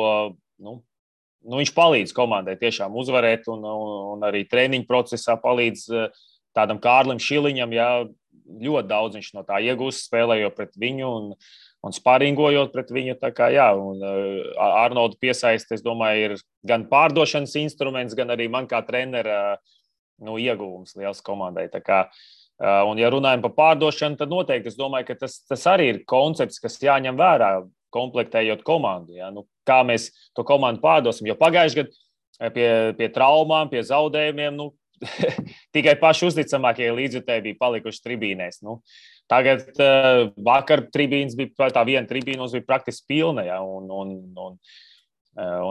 viņš palīdz komandai tiešām uzvarēt un arī treniņu procesā palīdz tādam Kārlim Šiliņam, jā, ļoti daudz viņš no tā iegūst, spēlējot pret viņu un sparingojot pret viņu. Tā kā, jā, un Arnoldu piesaist, es domāju, ir gan pārdošanas instruments, gan arī man kā trenera ieguvums liels komandai. Tā kā un, ja runājam par pārdošanu, tad noteikti es domāju, ka tas arī ir koncepts, kas jāņem vērā, komplektējot komandu. Ja? Kā mēs to komandu pārdosim, jo pagājuši gadu pie traumām, pie zaudējumiem, tikai paši uzticamākie līdzjutēji bija palikuši tribīnēs. Tagad vakar tribīnas bija, tā viena tribīna bija praktiski pilna, ja? Un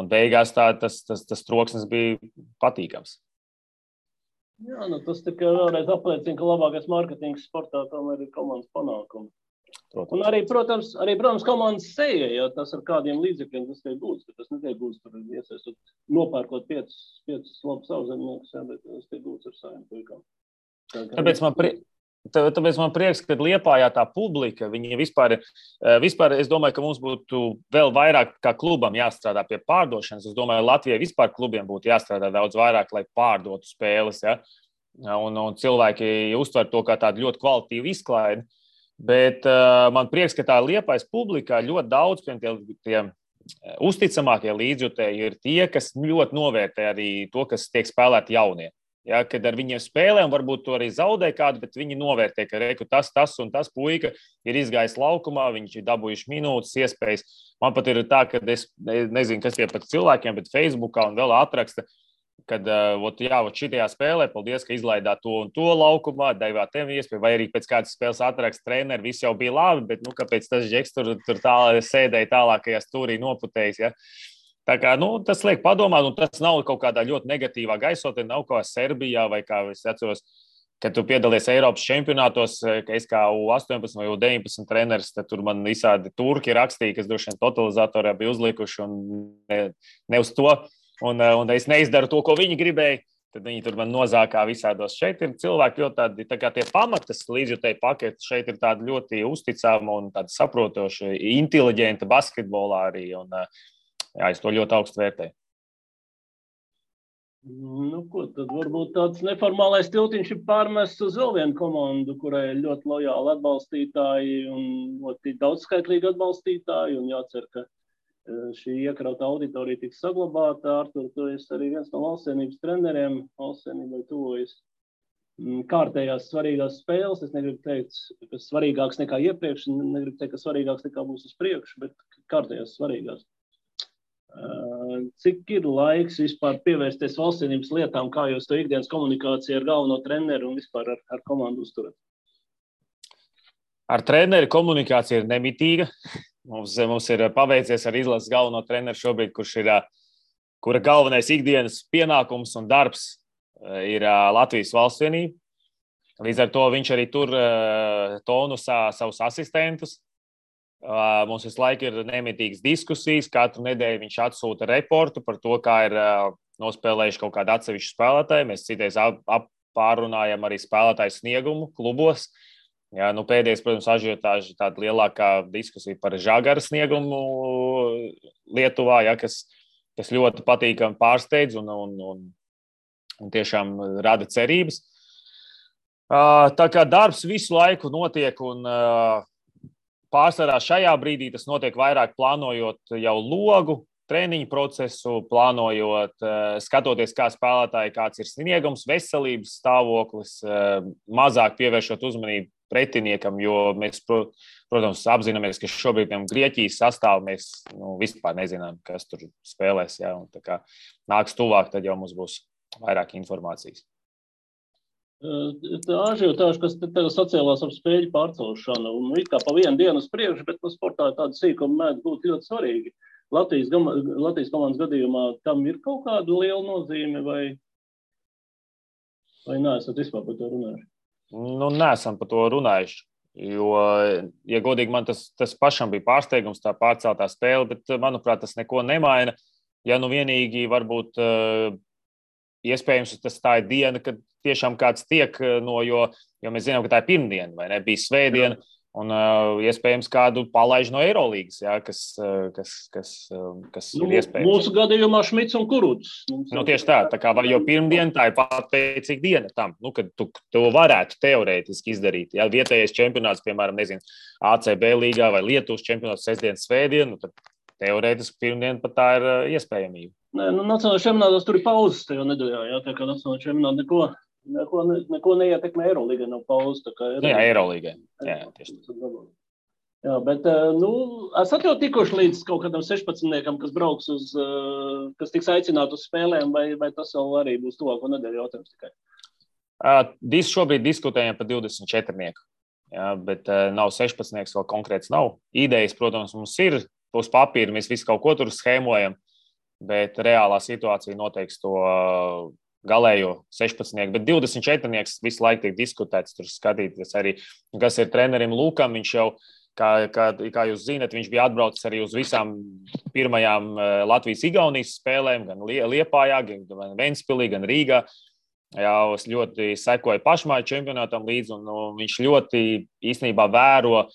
beigās tas troksnis bija patīkams. Jā, tas tikai vēlreiz apliecina, ka labākais mārketings sportā tomēr ir komandas panākumi. Un arī, protams, komandas seja, ja tas ar kādiem līdzekļiem tas tiek gūts, ka tas netiek gūts tur iesaistot, nopērkot 5 labus savzemniekus, bet tas tiek gūts ar saviem puikām. Tāpēc man prieks, ka Liepājā tā publika, viņi vispār, es domāju, ka mums būtu vēl vairāk kā klubam jāstrādā pie pārdošanas. Es domāju, Latvijai vispār klubiem būtu jāstrādā daudz vairāk, lai pārdotu spēles, ja? Un cilvēki uztver to kā tādu ļoti kvalitīvu izklaidi. Bet man prieks, ka tā Liepājas publikā ļoti daudz tie uzticamākie līdzjutēji ir tie, kas ļoti novērtē arī to, kas tiek spēlēti jaunie. Ja, kad ar viņiem spēlēm varbūt to arī zaudē kādu, bet viņi novērtē, ka tas un tas puika ir izgājis laukumā, viņš ir dabūjuši minūtes, iespējas. Man pat ir tā, ka es nezinu, kas tie pat cilvēkiem, bet Facebookā un vēl atraksta, kad šitajā spēlē, paldies, ka izlaidāt to un to laukumā, devāt tev iespēju, vai arī pēc kādas spēles atraksta treneri, viss jau bija labi, bet kāpēc tas Džeks tur sēdēja tālākajā stūrī noputējis, ja? Tā kā, tas liek padomāt, un tas nav kaut kādā ļoti negatīvā gaisotnē, nav kā Serbijā vai kā es atceros kad tu piedalies Eiropas čempionātos, ka es kā U18 vai U19 treneris, tad tur man visādi turki rakstīja, kas droši vien totalizatorā bija uzlikuši un ne uz to. Un es neizdaru to, ko viņi gribēja. Tad viņi tur man nozākā visādos. Šeit ir cilvēki ļoti tādi, tā kā tie pamatas līdzjutēji paketi. Šeit ir tādi ļoti uzticami un tādi saprotoši, inteliģenti basketbolā arī. Un, jā, es to ļoti augstu vērtēju. Nu, ko tad varbūt tāds neformālais tiltiņš ir pārmests uz vēl vienu komandu, kurai ir ļoti lojāli atbalstītāji un ļoti daudzskaitlīgi atbalstītāji. Un jācer, ka šī iekrauta auditorija tiks saglabāta. Artur, tu esi arī viens no valstsienības treneriem. Valstsienībai tuvojas kārtējās svarīgās spēles. Es negribu teikt, ka svarīgāks nekā iepriekš, negribu teikt, ka svarīgāks nekā būs uz priekšu, bet kārtējās svarīgās. Cik ir laiks vispār pievērsties valstsienības lietām, kā jūs to ikdienas komunikāciju ar galveno treneru un vispār ar komandu uzturat? Ar treneri komunikācija ir nemitīga. Mums ir paveicies ar izlases galveno treneru šobrīd, kura galvenais ikdienas pienākums un darbs ir Latvijas valstsienība. Līdz ar to viņš arī tur tonusā savus asistentus. Mums visu laiku ir nemitīgas diskusijas. Katru nedēļu viņš atsūta reportu par to, kā ir nospēlējuši kaut kādu atsevišķu spēlētāju. Mēs citreiz pārrunājam arī spēlētāju sniegumu klubos. Jā, nu pēdējais, protams, ažiotāža tāda lielākā diskusija par Žagara sniegumu Lietuvā, ja, kas ļoti patīkami pārsteidz un tiešām rada cerības. Tā kā darbs visu laiku notiek un pārsvarā šajā brīdī tas notiek vairāk plānojot jau logu, treniņu procesu, plānojot, skatoties, kā spēlētāji, kāds ir sniegums, veselības stāvoklis, mazāk pievēršot uzmanību pretiniekam, jo mēs, protams, apzināmies, ka šobrīd Grieķijas sastāvu mēs vispār nezinām, kas tur spēlēs. Ja, un tā kā nāks tuvāk, tad jau mums būs vairāk informācijas. Tā ažiotāža, kas tagad sacēlās ap spēļu pārcelšanu, un it kā pa vienu dienu uz priekšu, bet sportā tāda sīkuma mēdz būt ļoti svarīgi. Latvijas komandas gadījumā tam ir kaut kāda liela nozīme vai neesat vispār par to runājuši? Nu, neesam par to runājuši, jo, ja godīgi, man tas pašam bija pārsteigums, tā pārceltā spēle, bet, manuprāt, tas neko nemaina. Ja nu vienīgi varbūt iespējams tā ir diena, kad tiešām kāds tiek jo mēs zinām, ka tā ir pirmdiena, vai ne, bija svētdiena, un iespējams kādu palaiž no Eirolīgas, jā, kas ir iespējams. Mūsu gadījumā Šmits un Kuruts. Tieši tā kā jau pirmdiena, tā ir patveicīga diena tam, kad tu to varētu teorētiski izdarīt. Ja vietējais čempionāts, piemēram, nezinu, ACB līgā vai Lietuvas čempionāts sestdienas svētdienu, tad teorētiski pirmdiena pat tā ir iespējamība. Nē, nacionālajā čempionātā tur ir pauzes tajā nedēļā, jā, tā kā nacionālajā čempionātā neko neietekmē Eirolīgai, nav pauzes. Jā, Eirolīgai. Jā, tieši tā. Jā, bet, esat jau tikuši līdz kaut kādam 16-niekam, kas brauks kas tiks aicināt uz spēlēm, vai tas vēl arī būs tuvāko nedēļu jautājums tikai? Šobrīd diskutējam par 24-nieku, jā, bet nav 16-nieks, vēl konkrēts nav. Idejas, protams, mums ir uz papīra, mēs visu kaut ko tur schēmojam, bet reālā situācija noteiks to galējo 16-nieku, bet 24-nieks visu laiku tiek diskutēts, tur skatīties arī, kas ir trenerim Lūkam, viņš jau, kā jūs zinat, viņš bija atbraucis arī uz visām pirmajām Latvijas-Igaunijas spēlēm, gan Liepājā, gan Ventspilī, gan Rīgā. Jā, es ļoti sekoju pašmāju čempionātam līdzi, un viņš ļoti īstenībā vēro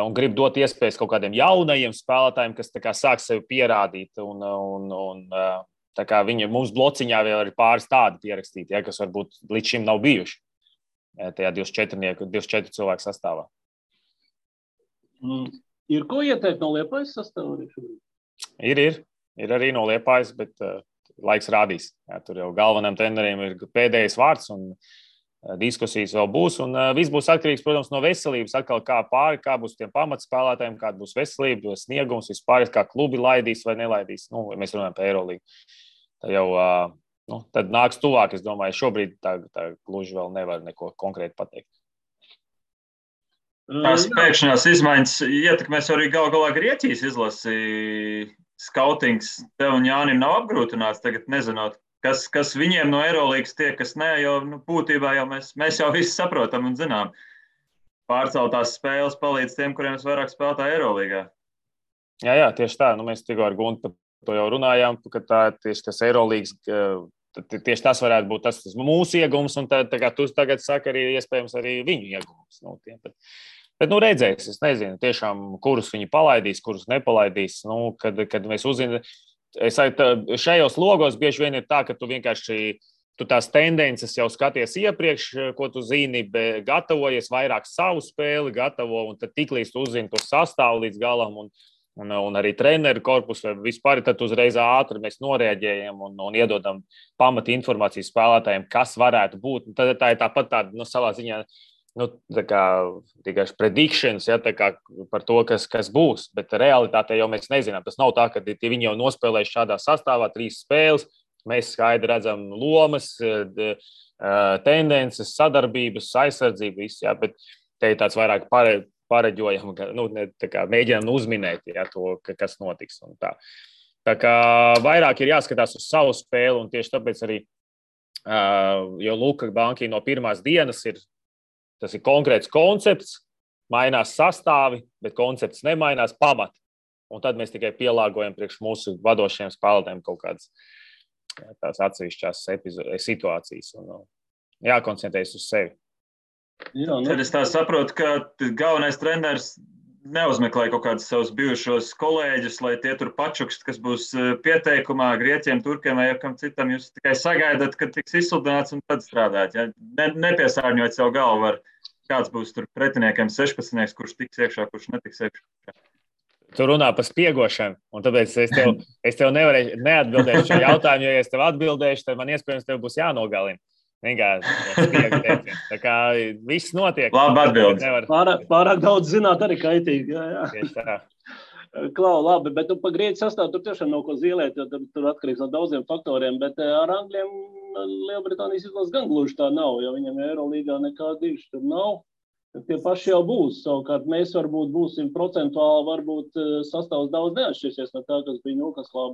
un grib dot iespējas kaut kādiem jaunajiem spēlētājiem, kas tā kā sāk sevi pierādīt, un tā kā mums blociņā vēl ir pāris tādi pierakstīti, ja, kas varbūt līdz šim nav bijuši tajā 24 cilvēku sastāvā. Ir ko ieteikt no Liepājas sastāvā arī šobrīd? Ir arī no Liepājas, bet laiks rādīs. Jā, tur jau galvenajam treneriem ir pēdējais vārds un diskusijas vēl būs. Un viss būs atkarīgs, protams, no veselības. Atkal kā būs tiem pamatspēlētājiem, kāda būs veselība, sniegums, vispār, kā klubi laidīs vai nelaidīs. Mēs runājam par Eirolīgu. Tā jau tad nāks tuvāk, es domāju, šobrīd tā gluži vēl nevar neko konkrēti pateikt. Tās pēkšņās izmaiņas ietekmēs arī galā Grieķijas izlasi. Skautings tev un Jānim nav apgrūtināts tagad, nezinot, kas viņiem no Eurolīgas tiek, kas nē, jo būtībā jau mēs jau visi saprotam un zinām. Pārceltās spēles palīdz tiem, kuriem vairāk spēlētā Eurolīgā. Jā, tieši tā. Mēs tikko ar Guntu to jau runājām, ka tieši tas Eurolīgas, tieši tas varētu būt tas mūsu iegums, un tā kā tu tagad saki, arī iespējams arī viņu iegums. Bet redzēs, es nezinu, tiešām, kurus viņi palaidīs, kurus nepalaidīs. Kad mēs uzzinām, šajos logos bieži vien ir tā, ka tu vienkārši tās tendences jau skaties iepriekš, ko tu zini, bet gatavojies vairāk savu spēli, gatavo, un tad tiklīdz tu uzzini to sastāvu līdz galam, un arī treneru korpusu, vai vispār, tad uzreiz ātri mēs noreaģējam un iedodam pamata informāciju spēlētājiem, kas varētu būt. Tad tā ir tāpat tāda, savā ziņā, tikai predictions, ja, par to, kas būs. Bet realitātē jau mēs nezinām. Tas nav tā, ka viņi jau nospēlējuši šādā sastāvā 3 spēles. Mēs skaidri redzam lomas, tendences, sadarbības, aizsardzību, viss, ja, bet te ir tāds vairāk pareģojam, mēģinām uzminēt, ja, to, kas notiks. Un tā. Tā kā vairāk ir jāskatās uz savu spēli, un tieši tāpēc arī, jo Luka Banki no pirmās dienas tas ir konkrēts koncepts, mainās sastāvi, bet koncepts nemainās pamat. Un tad mēs tikai pielāgojam priekš mūsu vadošiem spēlētājiem kaut kādas tās atsevišķās situācijas un jākoncentrējas uz sevi. Jā, Tad es tā saprotu, ka galvenais treneris neuzmeklē kaut kādus savus bijušos kolēģus, lai tie tur pačukst, kas būs pieteikumā Grieķiem, Turkiem vai kam citam. Jūs tikai sagaidat, kad tiks izsludināts un tad strādāt. Ja? Nepiesārņot savu galvu ar kāds būs tur pretiniekiem 16, kurš tiks iekšā, kurš netiks iekšā. Tu runā par spiegošanu, un tāpēc es tev nevarēšu neatbildēt šo jautājumu, jo, ja es tev atbildēšu, tad man iespējams tev būs jānogalina. Vienkārši tā kā viss notiek. Labi atbildi. Pārāk daudz zināt arī kaitīgi. Jā. Klau, labi, bet pa Grieķu sastāvu tur tiešām nav ko zīlēt, jo tur atkarīgs no daudziem faktoriem, bet ar Angļiem Lielbritānijas izlases gan gluži tā nav, jo viņam Eurolīgā nekā diši tur nav. Tie paši jau būs. Savukārt mēs varbūt būsim procentuāli, varbūt sastāvs daudz neatšķirsies no tā, kas bija Newcastlā,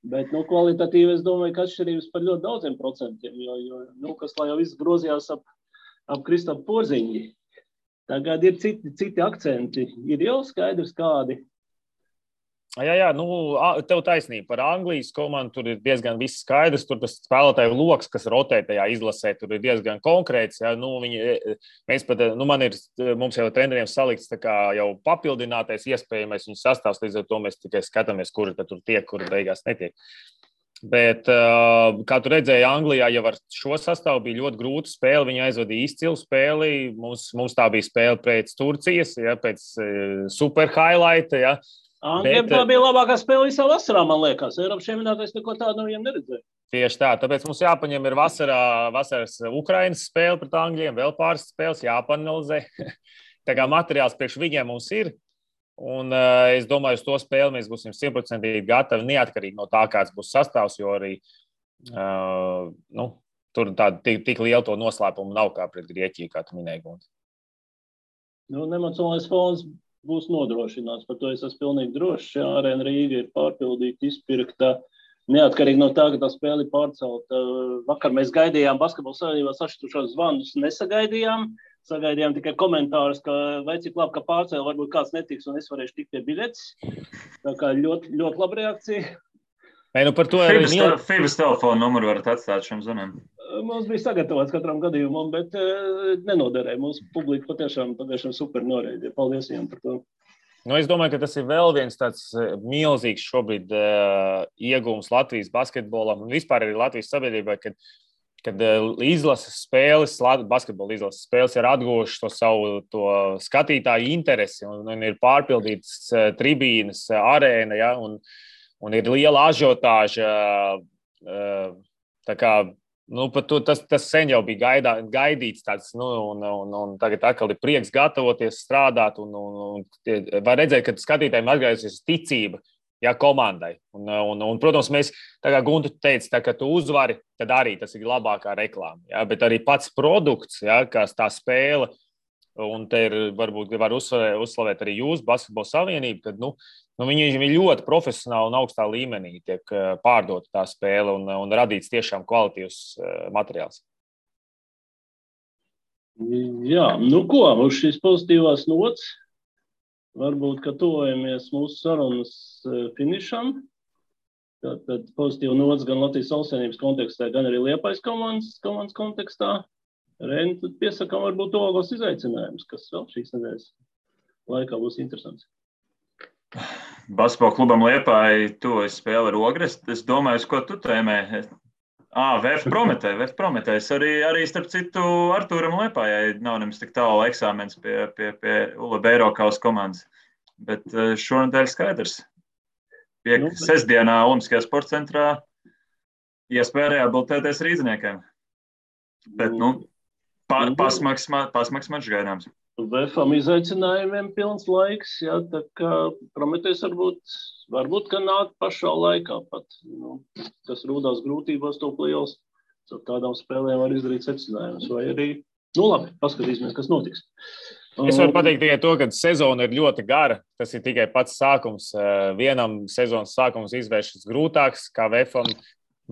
bet kvalitatīvi es domāju, ka atšķirības par ļoti daudziem procentiem, jo Newcastlā jau viss grozījās ap Kristapu Porziņģi. Tagad ir citi akcenti. Ir jau skaidrs kādi. Jā, tev taisnība par Anglijas komandu, tur ir diezgan viss skaidrs, tur tas spēlētāju loks, kas rotē tajā izlasē, tur ir diezgan konkrēts, jā, mums jau treneriem salikts tā kā jau papildinātais iespējamais viņu sastāvs, līdz ar to mēs tikai skatāmies, kuri tad tur tiek, kuri beigās netiek. Bet, kā tu redzēji, Anglijā jau ar šo sastāvu bija ļoti grūta spēle, viņi aizvadīja izcilu spēli, mums tā bija spēle pēc Turcijas, ja, pēc super highlighta, ja. Angļiem tā bija labākā spēle visā vasarā, man liekas. Eiropas čempionātā neko tādu no viņiem neredzēju. Tieši tā, tāpēc mums jāpaņem ir vasaras Ukrainas spēle pret Angļiem, vēl pāris spēles jāpanalizē. Tā kā materiāls priekš viņiem mums ir, un es domāju, uz to spēli mēs būsim 100% gatavi, neatkarīgi no tā, kāds būs sastāvs, jo arī tur tāda tik liela to noslēpumu nav kā pret Grieķiju, kā tu minēji, Gunti. Nemocionālais fons būs nodrošināts. Par to es esmu pilnīgi drošs. Arēna Rīga ir pārpildīta, izpirkta. Neatkarīgi no tā, ka tā spēle ir pārcelta. Vakar mēs gaidījām Basketbola savienībā sašķirtušos zvanus. Nesagaidījām. Sagaidījām tikai komentārus, ka vai cik labi, ka pārcēla, varbūt kāds netiks un es varēšu tikt pie biļetes. Tā kā ļoti, ļoti laba reakcija. Par to FIBAS telefonu numuru varat atstāt šiem zvaniem. Mums bija sagatavots katram gadījumam, bet nenoderēja. Mūsu publika patiešām super noreidīja. Paldies viņam par to. Es domāju, ka tas ir vēl viens tāds milzīgs šobrīd iegūms Latvijas basketbolam un vispār arī Latvijas sabiedrībai, kad izlases spēles, basketbola izlases spēles ir atguvušas to savu skatītāju interesi un ir pārpildītas tribīnes, arēna, ja, un ir liela ažiotāža. Tā kā tas sen jau bija gaidīts tāds, un tagad atkal ir prieks gatavoties, strādāt, un var redzēt, ka skatītājiem atgriezīsies ticība, ja, komandai. Un, protams, mēs, tā kā Guntu teica, tā, ka tu uzvari, tad arī tas ir labākā reklāma, ja, bet arī pats produkts, ja, kā tā spēle, un te ir, varbūt var uzslavēt arī jūs, Basketbola savienību, kad, Viņi ir ļoti profesionāli un augstā līmenī tiek pārdota tā spēle un radīts tiešām kvalitīvs materiāls. Jā, ko, uz šīs pozitīvās nots, varbūt, ka tuvojamies mūsu sarunas finišam. Tad pozitīva nots gan Latvijas Valstsvienības kontekstā, gan arī Liepājas komandas kontekstā. Reini, tad piesakām varbūt tuvākos izaicinājumus, kas vēl šīs nedēļas laikā būs interesants. Basketbola klubam Liepāja tuvojas spēle ar Ogres. Es domāju, ko tu tēmē. VF Prometējs. Arī starp citu Artūram Liepājai nav nemaz tik tālu eksāmens pie Ula Beirokaus komandas. Bet šonadēļ skaidrs. Sestdienā Olimpiskajā sporta centrā iespēja reabilitēties rīdziniekiem. Bet, pasmaks mačs gaidāms. VFam izaicinājumiem pilns laiks, jā, tā kā Prometējs varbūt, ka nāk pašā laikā pat. Kas rūdās grūtībās to play-offs, ar tādām spēlēm var izdarīt secinājumus. Vai arī, labi, paskatīsimies, kas notiks. Es varu pateikt tikai to, ka sezona ir ļoti gara. Tas ir tikai pats sākums. Vienam sezonas sākums izvēršas grūtāks, kā VFam.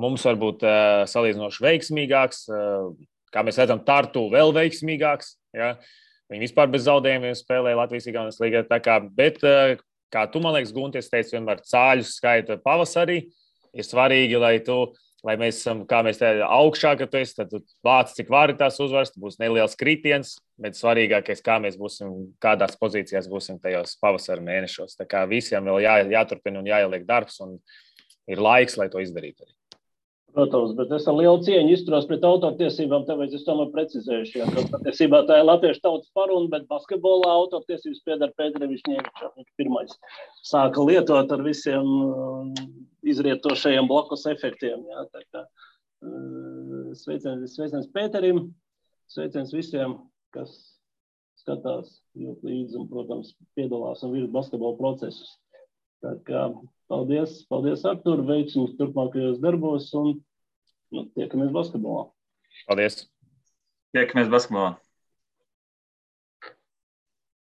Mums varbūt salīdzinoši veiksmīgāks. Kā mēs redzam, Tartu vēl veiksmīgāks. Ja? Viņi vispār bez zaudējumiem spēlē Latvijas-Igaunijas līgā. Bet, kā tu, man liekas, Guntis teica, vienmēr cāļus skaita pavasarī. Ir svarīgi, lai mēs esam, kā mēs te augšā, ka tu esi, tad tu vāc, cik vari tās uzvaras, būs neliels kritiens, bet svarīgākais, kā mēs būsim, kādās pozīcijās būsim tajos pavasara mēnešos. Tā kā visiem vēl jāturpina un jāieliek darbs, un ir laiks, lai to izdarītu arī. Protams, bet es ar lielu cieņu izturos pret autortiesībām, tāpēc es tomēr precizējuši, ka patiesībā tā ir latviešu tautas paruna, bet basketbolā autortiesības pieder Pēterim Višņevičam. Viņš pirmais sāka lietot ar visiem izrietošajiem blakus efektiem. Jā, tā kā sveiciens Pēterim, sveiciens visiem, kas skatās ļoti līdzi un, protams, piedalās un virz basketbola procesus. Tā kā paldies Artur, veiksmus turpmākajos darbos un tiekamies basketbolā. Paldies. Tiekamies basketbolā.